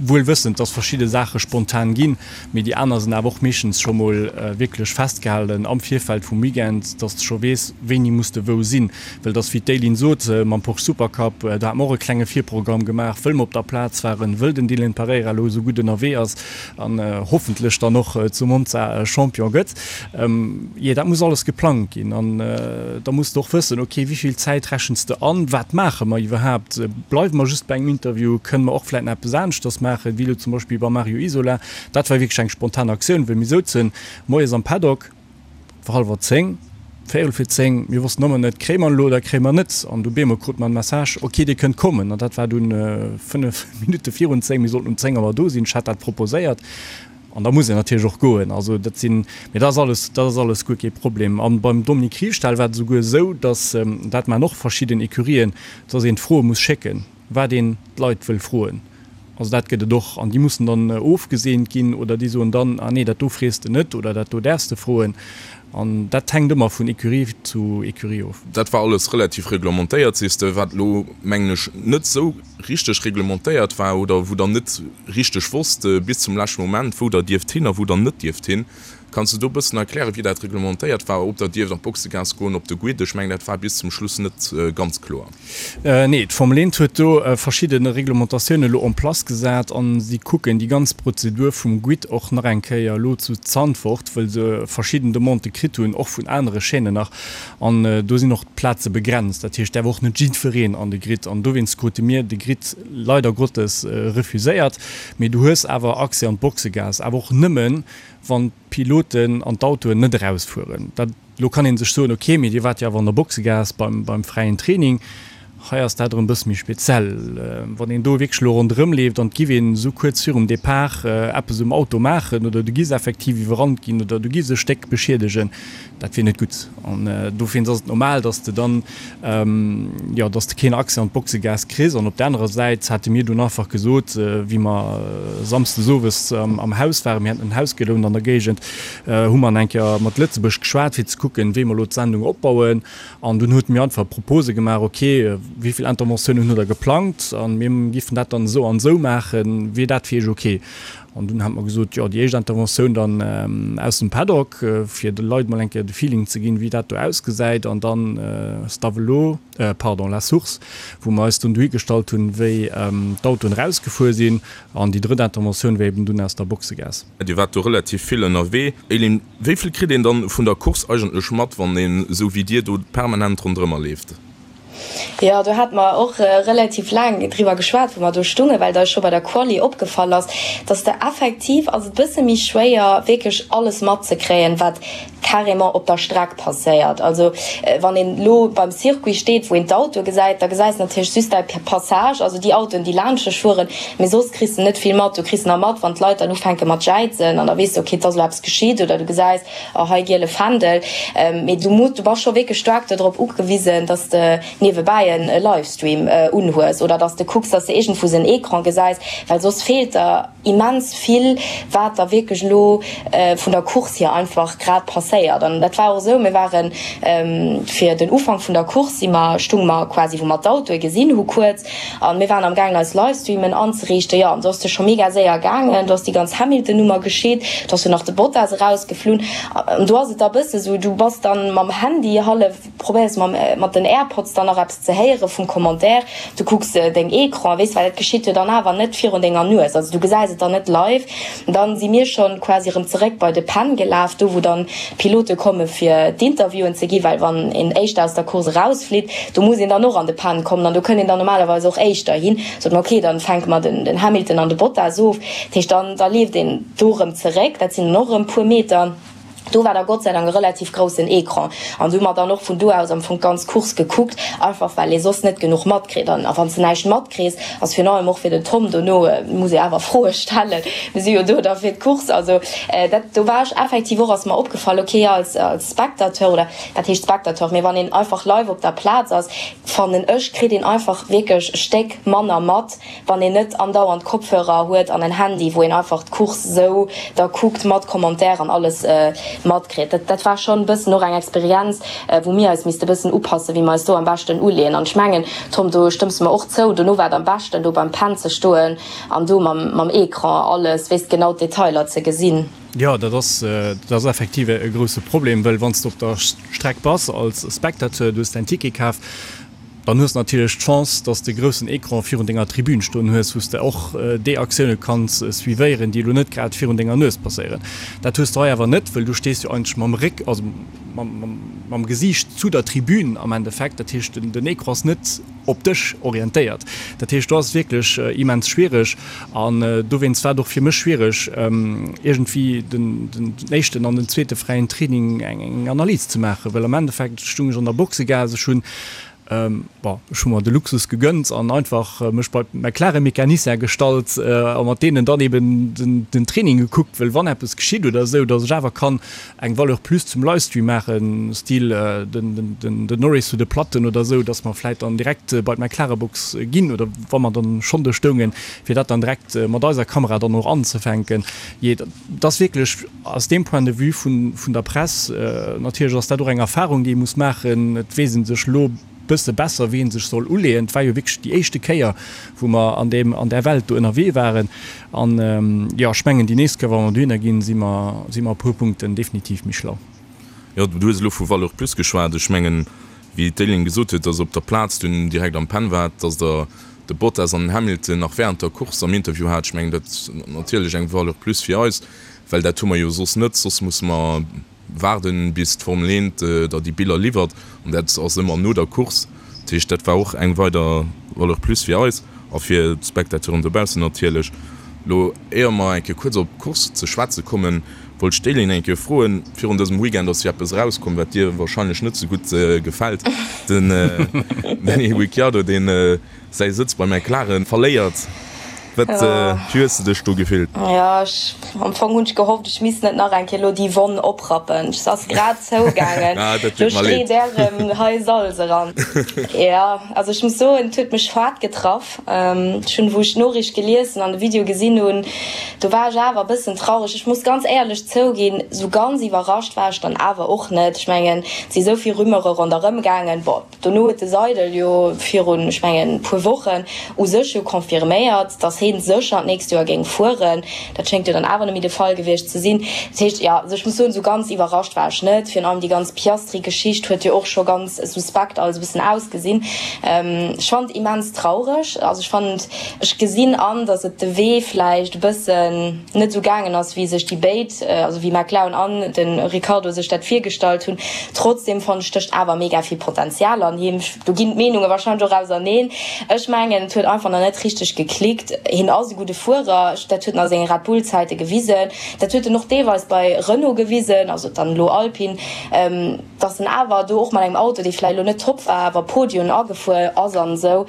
Wuel wëssend, dass verschidde Saache spontan ginn, mee déi aner sinn awer och meeschtens scho mol wierklech festgehalen am Virfeld vum Weekend, dass de scho weess, wéini muss de wou sinn. Well et ass, wéi d'Eileen sot, mam Porsche Supercup, do hate mer och e klenge Virprogramm gemaach, wëll mer op der Plaz waren, wëll den Dylan Pereira elo esou gutt ënnerwee ass an hoffentlech dann och zu Monza Champion gëtt. Jee, dat muss alles geplangt ginn an da muss de och wëssen, ok, wéi vill Zäit rechens de an, wat maache mer iwwerhaapt, bleiwe mer just bei engem Interview, kënne mer och vläit nach eppes aneschters maachen, wéi elo zum Beispill beim Mario Isola. Dat war wierklech eng spontan Aktioun, wëll mir souzen moies am Paddock, et war hallwer 10, véierel vir 10, mir wossten ëmmer net, kréie mer en elo oder kréie mer en net an du bemol krute mer en Message, ok, dir kënnt kommen an dat war dunn 5 Minutte virun 10, mir sollten um 10 Auer do sinn, ech hat dat proposéiert. An da muss een natierlech och goen. Also dat sinn, mee dat ass alles, dat ass alles guer kee Problem. A beim Dominique Riefstahl war et esouguer esou, datt, dat maachen och verschidden Ecurien, datt een d'Froe muss schécken, wat een d'Leit wëll froen. Also dat gëtt et och. An déi mussen dann ofgeseent ginn oder déi soen dann, ah nee, dat do frees de net oder dat do däerfs de froen. An dat hänkt ëmmer vun Ecurie zu Ecurie of. Dat war alles relativ reglementéiert, sees de, wat elo, mengen ech, net esou richteg reglementéiert war oder wou der net richteg wosst bis zum leschte Moment, wou der dierft hin a wou der net dierft hin. Kanns de do e bëssen erklären, wéi dat reglementéiert war, ob der dierft an d'Boxegaass goen, op de Grid? Ech mengen, dat war bis zum Schluss net ganz kloer. Nee, d'Formel 1 huet do verschidde Reglementatiounen elo en place gesat a si kucken déi ganz Prozedur vum Grid och nach eng Kéier elo zu Zandvoort, wëll se verschidden Demandë kritt hunn, och vun anere Chaînen nach. An do sinn och d'Plaze begrenzt, dat heescht, däerf och net jiddwereen an de Grid. An dowéinst krute mir de Grid leider Gottes refuséiert. Mee du hues awer Accès an d'Boxegaass, awer och nëmmen, wann d'Piloten an d'Autoen net erausfueren. Dat, elo kann ee sech soen, ok, mee Dir waart jo awer an der Boxegaass beim, beim fräien Training. Hei ass dat erëm e bësse méi speziell. Wann een do wierklech elo ronderëm leeft an et giff een esou kuerz virum Depart eppes um Auto maachen oder du giss effektiv iwwerrannt ginn oder du giss e Stéck beschiedegen, dat wier net gutt. An dowéinst ass et normal, dass de dann, jo, dass de keen Accès an d'Boxegaass kriss. An op der anerer Säit hate mir dunn einfach gesot, wéi mer samsdes owes am Haus waren, mir haten en Haus gelount an der Géigend, hu mer eng Kéier mat Lëtzebuerg geschwat, fir ze kucken, wéi mer elo d'Sendung opbauen. An dunn huet mir einfach Propose gemaach, ok, wéi vill Interventiounen hutt Der geplangt a mir giffen dat dann esou an esou maachen, wier dat fir Iech ok? An dunn hat mer gesot, jo, déi éischt Interventioun dann aus dem Paddock, fir de Leit mol eng Kéier de Feeling ze ginn, wéi dat do ausgesäit, an dann Stavelot, pardon, La Source, wou mer eis dunn dohi gestallt hunn, wéi d'Autoen erausgefuer sinn. An déi drëtt Interventioun wär eben dunn aus der Boxegaass. Dir waart do relativ vill ënnerwee. Eileen, wéi vill kritt een dann vun der Course eigentlech mat, wann een esou wéi dir do permanent ronderëmmer leeft? Jo, do hate mer och relativ laang driwwer geschwat, wou mer do stungen, well et eis scho bei der Quali opgefall ass, dass de effektiv ass et bësse méi schwéier wierklech alles matzekréien, wat. carrément op der Streck passéiert. Also wann een elo beim Circuit steet, wou een d'Autoe gesäit, da gesäis de natierlech just däi Passage, also déi Autoen, déi laanscht dech fueren, mee soss kriss de net vill mat. Du kriss nach mat, wann d'Leit dann ufänke mat jäizen an da weess de, okay, et ass elo eppes geschitt oder du gesäis, oh hei giele Fändel. Mee du muss, du bass scho wierklech staark dodrop ugewisen, dass de niewebäi e Livestream unhues oder dass de kucks, dass de iergendwou en Ecran gesäis, well soss feelt der immens vill, wat da wierklech elo vun der Course hier einfach grad passéiert. An dat war och esou, mir ware fir den Ufank vun der Course si mer, stunge mer quasi wou mer d'Autoe gesinn hu kuerz an mir waren am gaangen eis Livestreamen anzeriichten. Jo, an do ass de scho mega séier gaangen, do ass déi ganz Hamilton-Nummer geschitt, do ass jo nach de Bottas erausgeflunn an do ass et da bësse sou, du bass dann mam Handy hallef, probéiers mam mat den Airpods dann nach eppes ze héiere vum Commentaire, du kucks deng Ecran, weess, well et geschitt jo dann awer net virun denger Nues, also du gesäis et dann net live. Dann si mir schonn quasi erëm zeréck bei de Pen gelaf, do wou dann d'Pilote komme fir d'Interviewen ze gi, well wann een éischter aus der Course erausflitt, do muss een dann och an de Pen kommen an do kënnt een dann normalerweis och éischter hin. Sot mer, ok, dann fänke mer den Hamilton an de Bottas of, dat heescht dann da leeft een do erëm zeréck, dat sinn dann och erëm puer Meter. Do war da Gott sei Dank e relativ groussen Ecran an do hu mer dann och vun do aus am Fong d'ganz Course gekuckt, einfach well ee soss net genuch matkritt. An a wann s de näischt matkriss, ass virun allem och fir den Tom dono, muss ee awer Froe stellen, mir si jo do da fir d'Course. Also dat, do war ech effektiv och, ass mer opgefall, okay, als als Spectateur oder wat heescht Spectateur, mee wann een einfach live op der Plaz ass, fannen ech, kritt een einfach wierklech e Stéck manner mat, wann een net andauernd Kopfhörer huet an en Handy, wou een einfach d'Course sou da kuckt mat Commentaire an alles matkritt. Dat dat war schonn e bëssen och eng Experienz, wou mir eis misste bëssen upassen, wéi mer eis do am beschten uleeën. An ech mengen, Tom, do stëmms de mer och zou, dono war et am beschten, do beim Pen ze stoen an do mam mam Ecran alles, weess, genau d'Detailer ze gesinn. Jo, dat ass dat ass effektiv e grousse Problem, well wann s de op der Streck bass als Spectateur, du hues däin Ticket kaf, Dann hues de natierlech d'Chance, dass de groussen Ecran virun denger Tribün stoen hues, wou s de och déi Aktioune kanns suivéieren, déi elo net grad virun denger Nues passéieren. Dat hues de hei awer net, wëll du stees jo eigentlech mam Réck, also mam Gesiicht zu der Tribün am Endeffekt. Dat heescht, den Ecran ass net op dech orientéiert. Dat heescht, do ass et wierklech immens schwiereg. An dowéinst war et och fir mech schwiereg, iergendwéi den éischten an den zweete fräien Training eng Analys ze maachen, well am Endeffekt stung ech an der Boxegaass, ech hunn Bon, ech hu mer de Luxus gegönnt an einfach mech bei d'McLaren-Mecanicien gestallt a mat deenen dann eben den Training gekuckt, wëll wann eppes geschitt oder esou, datt ech awer kann eng Valeur plus zum Livestream maachen, Stil den Norris zu de Platten oder esou, datt mer vläit dann direkt bei d'McLaren-Box ginn oder wa mer dann schonn do stoungen, fir dat dann direkt mat eiser Kamera dann och anzefänken. Jee, Et ass wierklech aus deem Point de vue vun der Press, natierlech ass dat och eng Erfahrung, déi ee muss maachen. Et weess ee sech elo e bësse besser, wéi ee sech soll uleeën. Et war jo wierklech déi éischte Kéier, wou mer an deem, an där Welt do ënnerwee waren. An, jo, ech mengen, déi nächst Kéier, wa mer dohinner ginn, si mer, si mer e puer Punkten definitiv méi schlau. Jo, du hues elo vu Valeur plus geschwat. Ech mengen, wéi d'Éline gesot huet, dass op der Plaz dunn direkt am Pen waart, dass Der de Bottas an den Hamilton nach während der Course am Interview hat. Ech mengen, dat ass natierlech eng Valeur plus fir eis, well dat hu mer jo soss net. Soss musse mer waarden, bis d'Formel 1 der déi Biller liwwert, an dat ass ëmmer no der Course. Dat heescht, dat war och eng weider Valeur plus fir eis a fir d'Spectateuren dobaussen natierlech. Elo, éier mer eng Kéier kuerz op d'Course ze schwätze kommen, wollt ech d'Éline eng Kéier froen, Virun dësem Weekend ass jo eppes erauskomm, wat dir wahrscheinlech net sou gutt gefält, Den Danny Ricciardo, deen säi Sëtz bei McLaren verléiert. Wat, wéi hues de dech do gefillt? Jo, ech, am Fong hunn ech gehofft, ech misst net nach eng Kéier elo déi Wonn oprappen. Se ass grad zougaangen, lo street där erëm hei Salz eran. Jo, also ech muss soen, et huet mech haart getraff. Ech hunn, wou ech d'Noriicht gelies an de Video gesinn hunn, do war ech awer e bëssen traureg. Ech muss ganz éierlech zouginn, sou ganz iwwerrascht war ech dann awer och net. Ech mengen, et si sou vill Rumeure ronderëm gaangen. Bon, dono huet de Seidel jo virun, ech mengen, puer Wochen u sech jo confirméiert, datt hee sécher d'nächst Joer géing fueren. Dat schéngt jo dann awer net méi de Fall gewiescht ze sinn. Dat heescht, jo, also ech muss soen, sou ganz iwwerrascht war ech net. Virun allem déi ganz Piastri-Geschicht huet jo och scho ganz suspekt alles e bëssen ausgesinn. Ech fannen et immens traureg. Also ech fannen, ech gesinn an, datt et de Wee vläicht e bëssen net esou gaangen ass, wéi sech déi béid, also wéi McLaren an de Ricciardo sech dat virgestallt hunn. Trotzdem fannen ech, stécht awer mega vill Potenzial an him. Do ginn d'Meenunge warscheinlech och auserneen. Ech mengen, et huet einfach nach net richteg geklickt. Hien ass e gudde Fuerer, dat huet en a senge Red Bull-Zäite gewisen, dat huet en och deelweis bei Renault gewisen, also dann elo Alpine, dass en awer do och mat engem Auto, dee vläicht elo net top war, awer Podien agefuer ass an esou.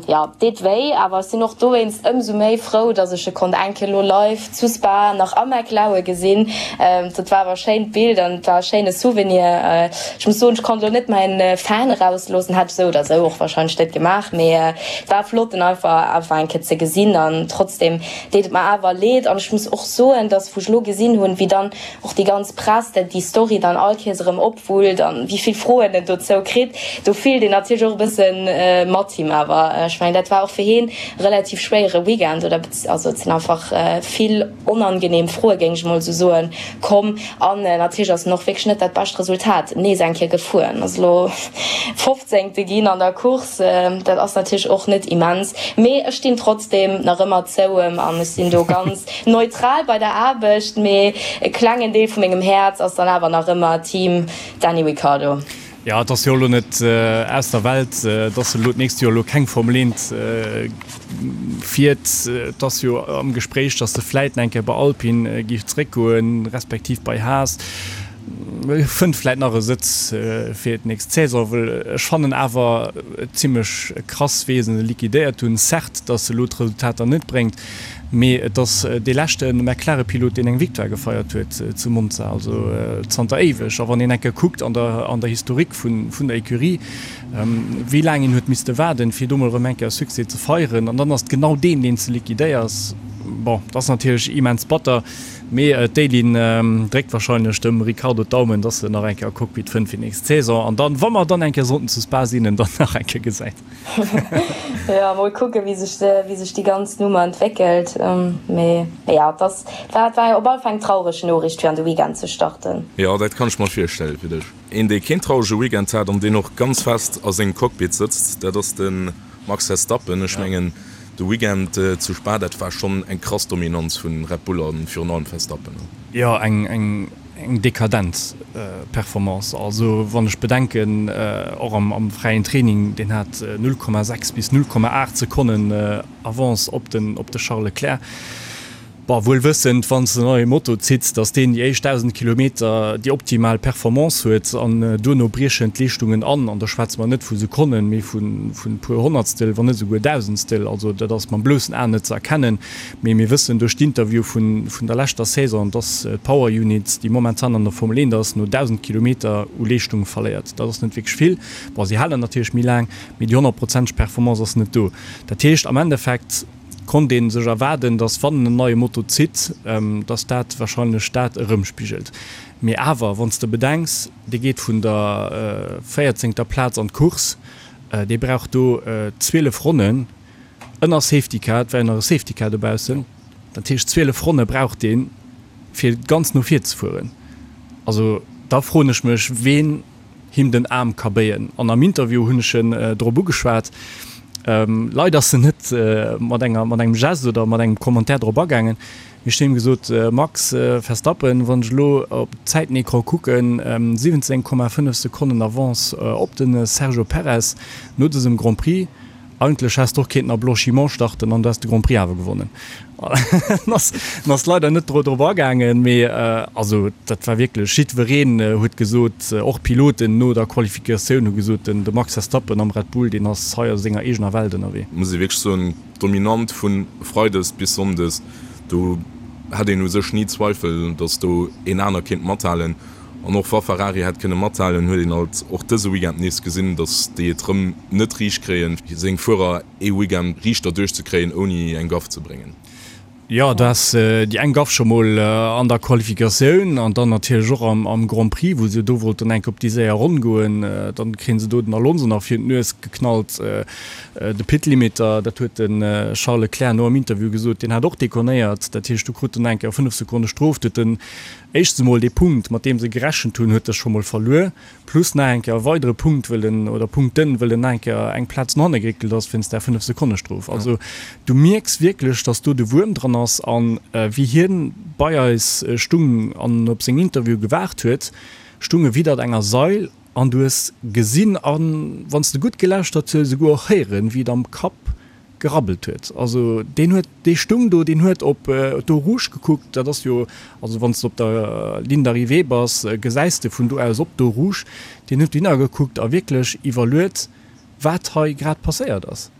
Jo, deet wéi, awer ech sinn och dowéinst ëmsou méi frou, dass ech e konnt eng Kéier elo live zu Spa nach am McLaue gesinn. Dat war awer e schéint Bild an et war e schéine Souvenir. Ech muss soen, ech konnt elo net mäin Fan erausloossen, hätt ech esou oder esou och wahrscheinlech net gemaach, mee et war flott en einfach einfach eng Kéier ze gesinn an trotzdem deet et mer awer leed an ech muss och soen, dass wou ech elo gesinn hunn, wéi dann och déi ganz Press dat déi Story dann all Kéiers erëm opwullt an wéi vill Froen en dozou kritt, do fillt een natierlech och e bëssen mat him. Awer ech mengen, dat war och fir heen e relativ schwéiere Weekend oder also et sinn einfach vill onangenehm Froe géing ech emol esou soen komm. An natierlech ass en och wierklech net dat bescht Resultat nees eng Kéier gefuer, en ass elo Fofzéngte ginn an der Course, dat ass natierlech och net immens, mee ech stinn trotzdeem nach ëmmer zou em an ech sinn do ganz Neutral bei der Aarbecht, mee e klengen Deel vu mengem Häerz ass dann awer nach ëmmer Team Danny Ricciardo. Jo, et ass jo elo net aus der Welt, dass en elo d'nächst Joer elo keng Formel 1 fiert. Et ass jo am Gespréich, dass e vläit nach eng Kéier bei Alpine géif zeréckgoen, respektiv bei Haas. Fënnt vläit nach e Sëtz fir d'nächst Saison, well ech fannen awer et zimmlech krass, wéi se e liquidéiert hunn. Certes, dass e elo d'Resultater net bréngt, Mee et ass dee leschte McLaren-Pilot, deen eng Victoire gefeiert huet zu Monza, also zanter éiweg. A wann een eng Kéier kuckt an der an der Historique vun vun der Ecurie, wéi laang een huet misste waarden, fir do mol erëm eng Kéier Succès ze feieren, an dann ass et genau deen, deen s de liquidéiers. Bon, dat ass natierlech immens batter, mee d'Eileen dréckt warscheinlech dem Ricciardo d'Daumen, dass en nach eng Kéier e Cockpit fënnt fir nächst Saison an dann, wa mer dann eng Kéier sollten zu Spa sinn, en dann nach eng Kéier gesäit. Jo, mol kucken, wéi sech, wéi sech déi ganz Nummer entwéckelt. Mee jo, et ass, war, war op alle Fall eng traureg Noriicht fir an de Weekend ze starten. Jo, dat kann ech mer virstelle fir dech. Een, dee keen traurege Weekend hat an deen och ganz fest a sengem Cockpit sëtzt, dat ass de Max Verstappen. Ech mengen, de Weekend zu Spa, dat war schonn eng krass Dominanz vu Red Bull a virun allem Verstappen. Jo, eng, eng Eng dekadent Performance. Also wann ech bedenken, och am fräien Training, deen hat 0,6 bis 0,8 Sekonnen Avance op den op de Charles Leclerc. Bon, wuel wëssend, wann s de en neie Moto zitts, datt deen déi éischt 1.000 Kilometer déi optimal Performance huet an duerno briechen d'Leeschtungen an. An do schwätze mer net vu Sekonnen, mee vu puer Honnertstel, wann net esouguer Dausendstel. Also dat ass mam bloussen Aen net ze erkennen. Mee mir wëssen duerch d'Interview vun der leschter Saison, dass d'Power Unit, déi momentan an der Formel 1 ass, no 1.000 Kilometer u Leeschtung verléiert. Dat ass net wierklech vill. Bon, si halen natierlech méi laang, mee déi honnertprozenteg Performance ass net do. Dat heescht, am Endeffekt konnt ee sech erwaarden, dass wann en neie Moto zitt, dass dat warscheinlech dat erëmspigelt. Mee awer, wann s de bedenks, dee geet vun der véierzéngter Plaz an d'Course, dee brauch do 12 Ronnen, Ënner Safety Car, et war jo nach e Safety Car dobaussen, dat heescht 12 Ronne brauch deen, fir ganz no vir ze fueren. Also da froen ech mech, ween him den Aarm ka béien. An am Interview hunn ech en drop ugeschwat. Leider ass en net mat enger, mat engem Geste oder mat engem Commentaire drop agaangen. Mee ech hunn him gesot, Max Verstappen, wann ech elo op d'Zäitenecran kucken, 17,5 Sekonnen Avance op de Sergio Perez no dësem Grand Prix, Eigentlech häss de och kéinten a Blanchiment starten an du häss de Grand Prix awer gewonnen. En ass, en ass leider net drop agaangen, mee also dat war wierklech, jiddwereen huet gesot, och d'Piloten no der Qualifikatioun hu gesot, den de Max Verstappen am Red Bull, deen ass hei a senger eegener Welt ënnerwee. Muss ee wierklech soen, dominant vu Freides bis Sonndes, do hat een u sech ni Zweifel, datt do een aner kéint mathalen. An och wa Ferrari hätt kënne mathalen, huet een alt och dëse Weekend nees gesinn, datt déi et rëm net riicht kréien, seng Fuerer ee Weekend riichter duerchzekréien, ouni eng Gaff ze bréngen. Jo, du has déi eng Gaff scho mol an der Qualifikatioun an dann natierlech och am Grand Prix, wou se do wollten enk op déi séier Ronn goen. Dann kréien se do den Alonso nach virun d'Nues geknallt. De Pit Limiter, dat huet de Charles Leclerc no am Interview gesot, deen hat och deconnéiert. Dat heescht, do krut en eng Kéier 5 Sekonne Strof. Du huet den Éischtens emol, dee Punkt, mat deem se gerechent hunn, huet e scho mol verluer, plus nach eng Kéier e weidere Punkt, wëll en, oder Punkten, wëll en nach eng Kéier eng Plaz no hanne geréckelt ass wéinst där Fënnef-Sekonne-Strof. Also du mierks wierklech, datt do de Wuerm dran ass. A wéi hien bei eis stung an op seng Interview gewaart huet, stung e widdert enger Sail an du hues gesinn, a wann s de gutt gelauschtert hues, esouguer och héieren, wéi et am Kapp. gerabbelt huet. Also deen huet, dee stung do, deen huet op d'Eau Rouge gekuckt, dat ass jo, also wann s de op der Ligne d'arrivée bass, gesäis de vun do aus op d'Eau Rouge, deen huet dohinner gekuckt a wierklech iwwerluet, wat hei grad passéiert ass.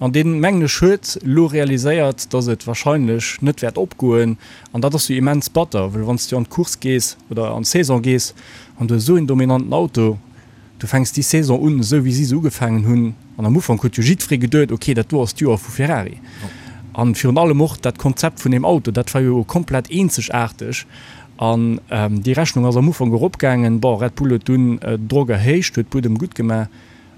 An deen, mengen ech, huet elo realiséiert, dass et wahrscheinlech net wäert opgoen. An dat ass jo immens batter, well wann s du an d'Course gees oder an d'Saison gees an du hues esou een dominanten Auto, du fänks déi Saison un, esou wéi si se ugefaangen hunn, an am Ufank huet jo jiddweree geduet, ok, dat do ass d'Joer vu Ferrari. An virun allem och dat Konzept vun deem Auto, dat war jo komplett eenzegaarteg. An déi Rechnung ass am Ufank eropgaangen. Bon, Red Bull huet dunn den Drock erhéicht, huet Buedem gutt gemaach.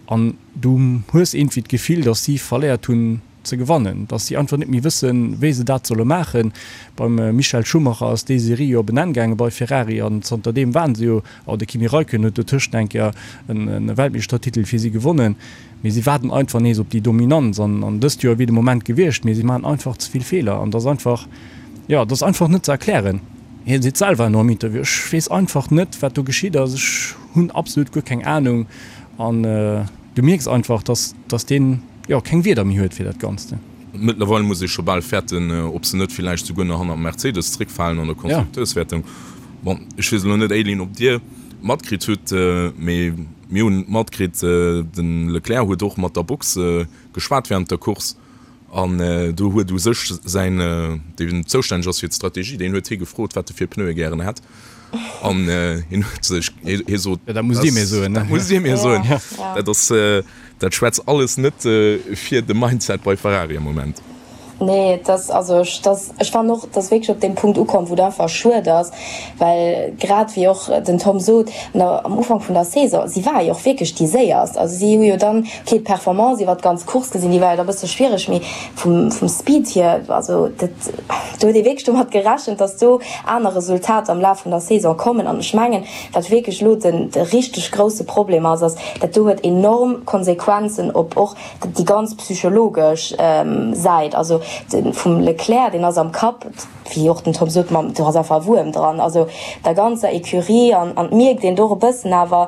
An du hues iergendwéi d'Gefill, datt si verléiert hunn ze gewannen, datt si einfach net méi wëssen, wéi se dat solle maachen. Beim Michael Schumacher ass déi Serie jo op en Enn gaange bei Ferrari an zanter deem waren se jo, oh de Kimi Räikkönen huet dotëscht eng Kéier e Weltmeeschtertitel fir si gewonnen, mee si waarden einfach nees op déi Dominanz an an dëst Joer wier de Moment gewiescht, mee si maachen einfach ze vill Feeler an dat ass einfach, jo, dat ass einfach net ze erklären. Hie seet selwer elo am Interview, Ech weess einfach net, wat do geschitt ass, ech hunn absolut guer keng Anung. An du mierks einfach, dass, dass deen, jo, keng Wierder méi huet fir dat Ganzt. Mëttlerweil muss ee scho bal fäerten, ob se net villäicht souguer nach hannert Mercedes zréckfalen an der Konstrukteurswäertung. Bon, ech weess elo net, Aileen, ob Dir matkritt hutt, mee mir hunn matkritt, de Leclerc huet och mat der Box geschwat wärend der Course. An do huet u sech säin, deen zoustänneg ass fir d'Strategie, deen huet hie gefrot, wat e fir Pneue gären hätt. An hien huet sech, hie sot, Dat musst Dir mir soen. Dat musst Dir mir soen. Dat ass, dat schwätzt alles net fir de Mindset bei Ferrari am Moment. Nee, et ass, also ech, dass, ech fannen och, et ass wierklech op deem Punkt ukomm, wou et einfach schued ass, well grad wéi och den Tom sot, an der, am Ufank vun der Saison, si ware jo och wierklech déi Séierst. Also si hu jo dann, okay, d'Performance iwwert d'ganz Course gesinn, déi war jo da e bësse schwiereg, mee vum, vum Speed hier, also dat, do huet ee wierklech domat gerechent, dass do aner Resultater am Laf vun der Saison kommen. An ech mengen, wat wierklech elo den, de richteg grousse Problem ass, ass, dat do huet enorm Konsequenzen op och déi ganz psychologesch Säit, also vum Leclerc, deen ass am Kapp, wéi och den Tom sot, mam, do ass einfach e Wuerm dran, also der ganzer Ecurie an an et mierkt een do och e bëssen awer,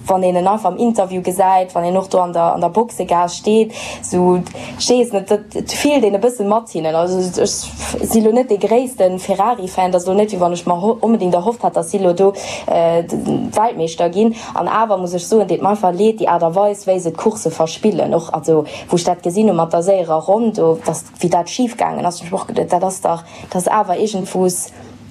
wann een en einfach am Interview gesäit, wann een och do an der an der Boxegaass steet, sou, ech weess net, dat et fillt een e bësse mat hinnen. Also ech si lo net dee gréisste Ferrari-Fan, et ass lo net, wéi wann ech mer onbedéngt erhofft hätt, datt si lo do Weltmeeschter ginn. An awer muss ech soen, deet mer einfach leed, déi Aart a Weis, wéi se d'Course verspillen. Och also wou ech dat gesinn hu mat der séierer Ronn do, dass, wéi dat schif gaangen ass, hunn ech mer och geduet, dat ass dach, dat ass awer iergendwous,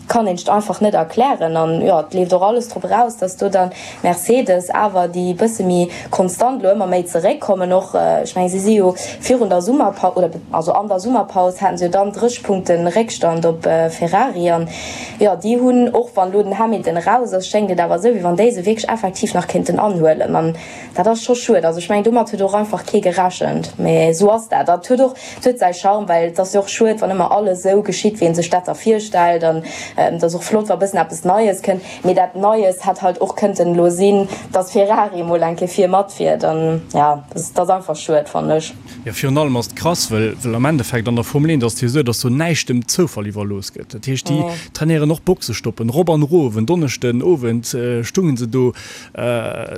kann een sech einfach net erklären. An jo, et leeft och alles drop eraus, dass do dann Mercedes awer, déi e bësse méi konstant elo ëmmer méi zeréckkommen och, ech mengen, si si jo virun der Summerpaus, oder also an der Summerpaus haten se jo dann 30 Punkte Réckstand op Ferrari an, Jo, déi hunn, och wann elo den Hamilton eraus ass, schéngt et awer esou, wéi wann déi se wierklech effektiv nach kéinten anhuelen. An dat ass scho schued. Also ech mengen, domat huet och einfach kee gerechent. Mee esou ass dat. Dat huet och, et huet säi Charme, well et ass jo och schued, wann ëmmer alles esou geschitt, wéi ee sech dat da virstellt. An et ass och flott, wa bëssen eppes Neies kënnt. Mee dat Neies hätt halt och kënnten elo sinn, dass Ferrari emol eng Kéier vir matfiert. An jo, dat ass einfach schued, fannen ech. Jo, virun allem ass et krass, well well am Endeffekt an der Formel 1 ass et jo esou, dass do näischt dem Zoufall iwwerlooss gëtt. Dat heescht, déi trainéieren och Boxestoppen rop an erof. En Donneschden Owend stungen se do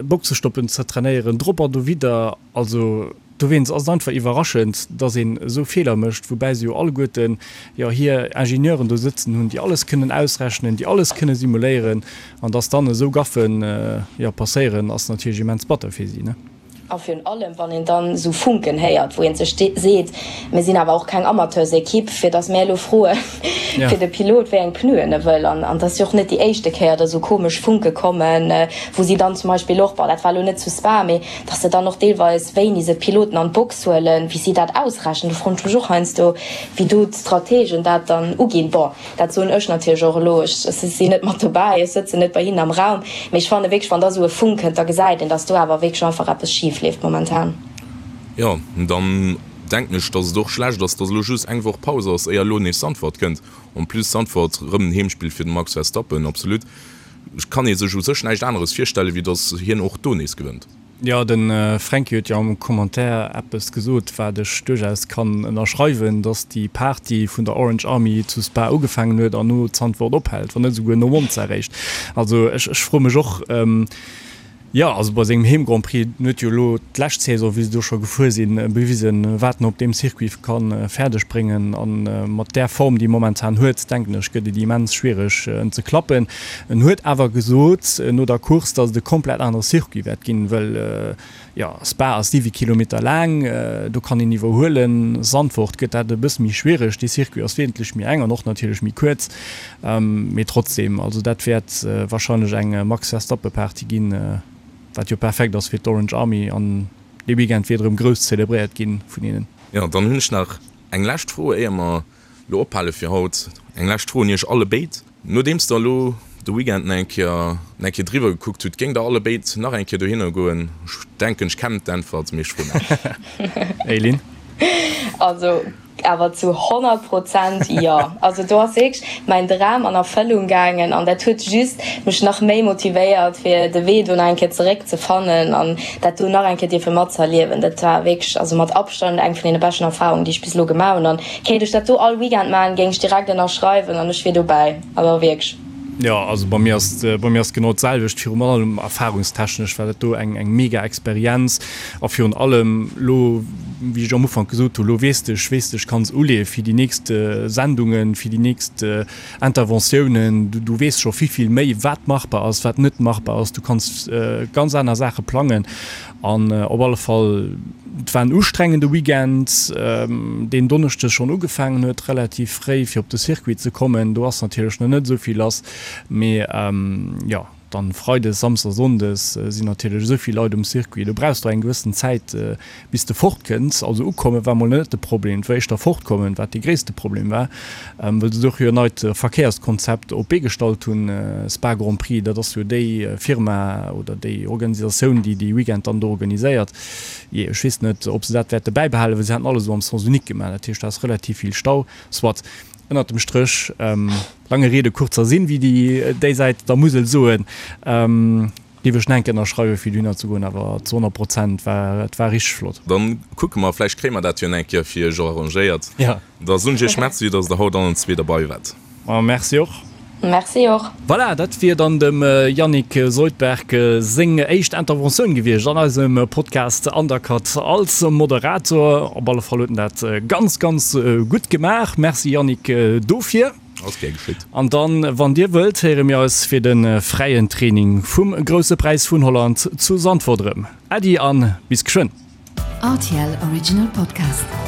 Boxestoppen ze trainéieren, drop an dowidder. Also dowéinst ass et einfach iwwerraschend, dass een esou Feeler mécht, woubäi se jo alleguerten jo hir Ingenieuren do sëtzen hunn, déi alles kënnen ausrechnen, déi alles kënne simuléieren. An dass dann esou Gaffen, jo, passéieren, ass natierlech immens batter fir si, ne? A virun allem, wann een dann esou Funken héiert, wou ee sech seet, Mir sinn awer och keng Amateursekipp, fir datt mär elo froe fir de Pilot, wéi eng Pneuen e wëll. An et ass jo och net déi éischte Kéier, datt esou komesch Funke kommen, wou si dann zum Beispill och, bon, dat war elo net zu Spa, mee datt se dann och deelweis, wéini se d'Piloten an d'Box huelen, wéi si dat ausrechnen, do froen ech mech och heiansdo, wéi do d'Strategen dat dann uginn. Bon. Dat soen ech natierlech och elo, ech sinn net mat dobäi, ech sëtzen net bei hinnen am Raum, mee ech fanne wierklech, wann da esou e Funk kënnt, da gesäit een, datt do awer wierklech einfach eppes schif leeft momentan. Jo, dann denken ech, datt et och schlecht ass, datt elo just eng Woch Paus ass, éier elo nees Zandvoort kënnt. En plus Zandvoort, rëm en Heemspill fir de Max Verstappen, absolut. Kann ee sech u sech näischt aneres virstellen, wéi datt hien och do nees gewënnt. Jo, de Fränki huet jo am Commentaire eppes gesot, wat ech duerchaus kann ënnerschreiwen, dass déi Party vun der Orange Army zu Spa ugefaangen huet an no Zandvoort ophält, wann net esouguer no Monza eréischt. Also ech, ech froe mech och. Jo, also bei sengem Heem-Grand Prix, en huet jo elo d'lescht Saison, wéi se do scho gefuer sinn, bewisen, wat en op deem Circuit ka fäerdeg bréngen. A mat där Form, déi e momentan huet, denken ech, gëtt et immens schwiereg, en ze klappen. En huet awer gesot no der Course, datt et e komplett anere Circuit wäert ginn, well Jo, Spa ass 7 Kilometer laang, do kann een iwwerhuelen. Zandvoort gëtt dat e bësse méi schwiereg, dee Circuit ass wesentlech méi eng an och natierlech méi kuerz. Mee trotzdeem, also dat wäert warscheinlech eng Max Verstappen-Party ginn, wat jo perfekt ass fir d'Orange Army an dee Weekend wäert erëm grouss zelebréiert ginn vun hinnen. Jo, dann hunn ech nach eng lescht Fro, éier mer lo ophale fir haut. Eng lescht Fro un iech allebéid. Nodeems der elo de Weekend nach eng Kéier nach eng Kéier driwwer gekuckt hutt, géingt der allebéid nach eng Kéier dohinner goen? Ech denken, ech kennen d'Äntwert, mee ech froen awer. Eileen? Also awer zu 100 Prozent jo. Also do ass wierklech mäin Dram an Erfëllung gaangen an dat huet just mech nach méi motivéiert fir de Wee do nach eng Kéier zeréck ze fannen an dat do nach eng Kéier dierfe matzëerliewen. Dat war wierklech also mat Abstand eng vun deene beschten Erfarungen, déi ech bis elo gemaach hunn an Kéint ech dat do all Weekend maan, géing ech direkt ënnerschreiwen an ech wier dobäi. Also wierklech. Jo, also bei mir ass bei mir ass genau d'selwecht. Virun allem erfahrungstechnesch war dat do eng eng mega Experienz a virun allem lo, wéi ech am Ufank gesot hunn, lo weess de, ech weess de, ech kann se uleeë fir déi nächst Sendungen, fir déi nächst Interventiounen. Du du weess scho vill vill méi wat machbar ass, wat net machbar ass. Du kanns ganz aner Saache plangen An op alle Fall, et war en ustrengende Weekend, deen Donneschdes schonn ugefaangen huet, relativ fréi, fir op de Circuit ze kommen. Do ass natierlech nach net esou vill lass, mee jo, dann Freides, Samsdes, Sonndes sinn natierlech esou vill Leit um Circuit, do brauchs de och eng gewëssen Zäit, bis de fortkënns. Also ukomme war mol net de Problem, et war éischter fortkommen, wat dee gréisste Problem war, well se do jo en neit Verkéierskonzept op d'Bee gestallt hunn, Spa Grand Prix, dat ass jo déi Firma oder déi Organisatioun, déi dee Weekend dann do organiséiert. Jee, ech weess net, ob se dat wäerte bäibehalen, well se haten alles esou am Sens unique gemaach, dat heescht, do ass relativ vill Stau. Soit, ënnert dem Stréch, lange Rede, kurzer Sinn, wéi déi déisäit der Musel soen. Géif ech enk ënnerschreiwen fir dohinner ze goen, awer zu 100 Prozent war et war richteg flott. Dann kucke mer, vläicht kréie mer dat jo eng Kéier fir iech och arrangéiert. Ja. Da soen ech iech Merci, dass der haut allen zwee derbei waart. Ma merci och. Merci och. Voilà, dat wier dann dem Yannick Soldberg seng éischt Interventioun gewiescht an eisem Podcast Undercut als Moderator. Op alle Fall huet en dat ganz, ganz gutt gemaach. Merci Yannick dofir. Ass gär geschitt. An dann, wann dir wëllt, héiere mir eis fir de fräien Training vum Grousse Präis vun Holland zu Zandvoort erëm. Äddi an bis geschwënn! Rtl Original Podcast.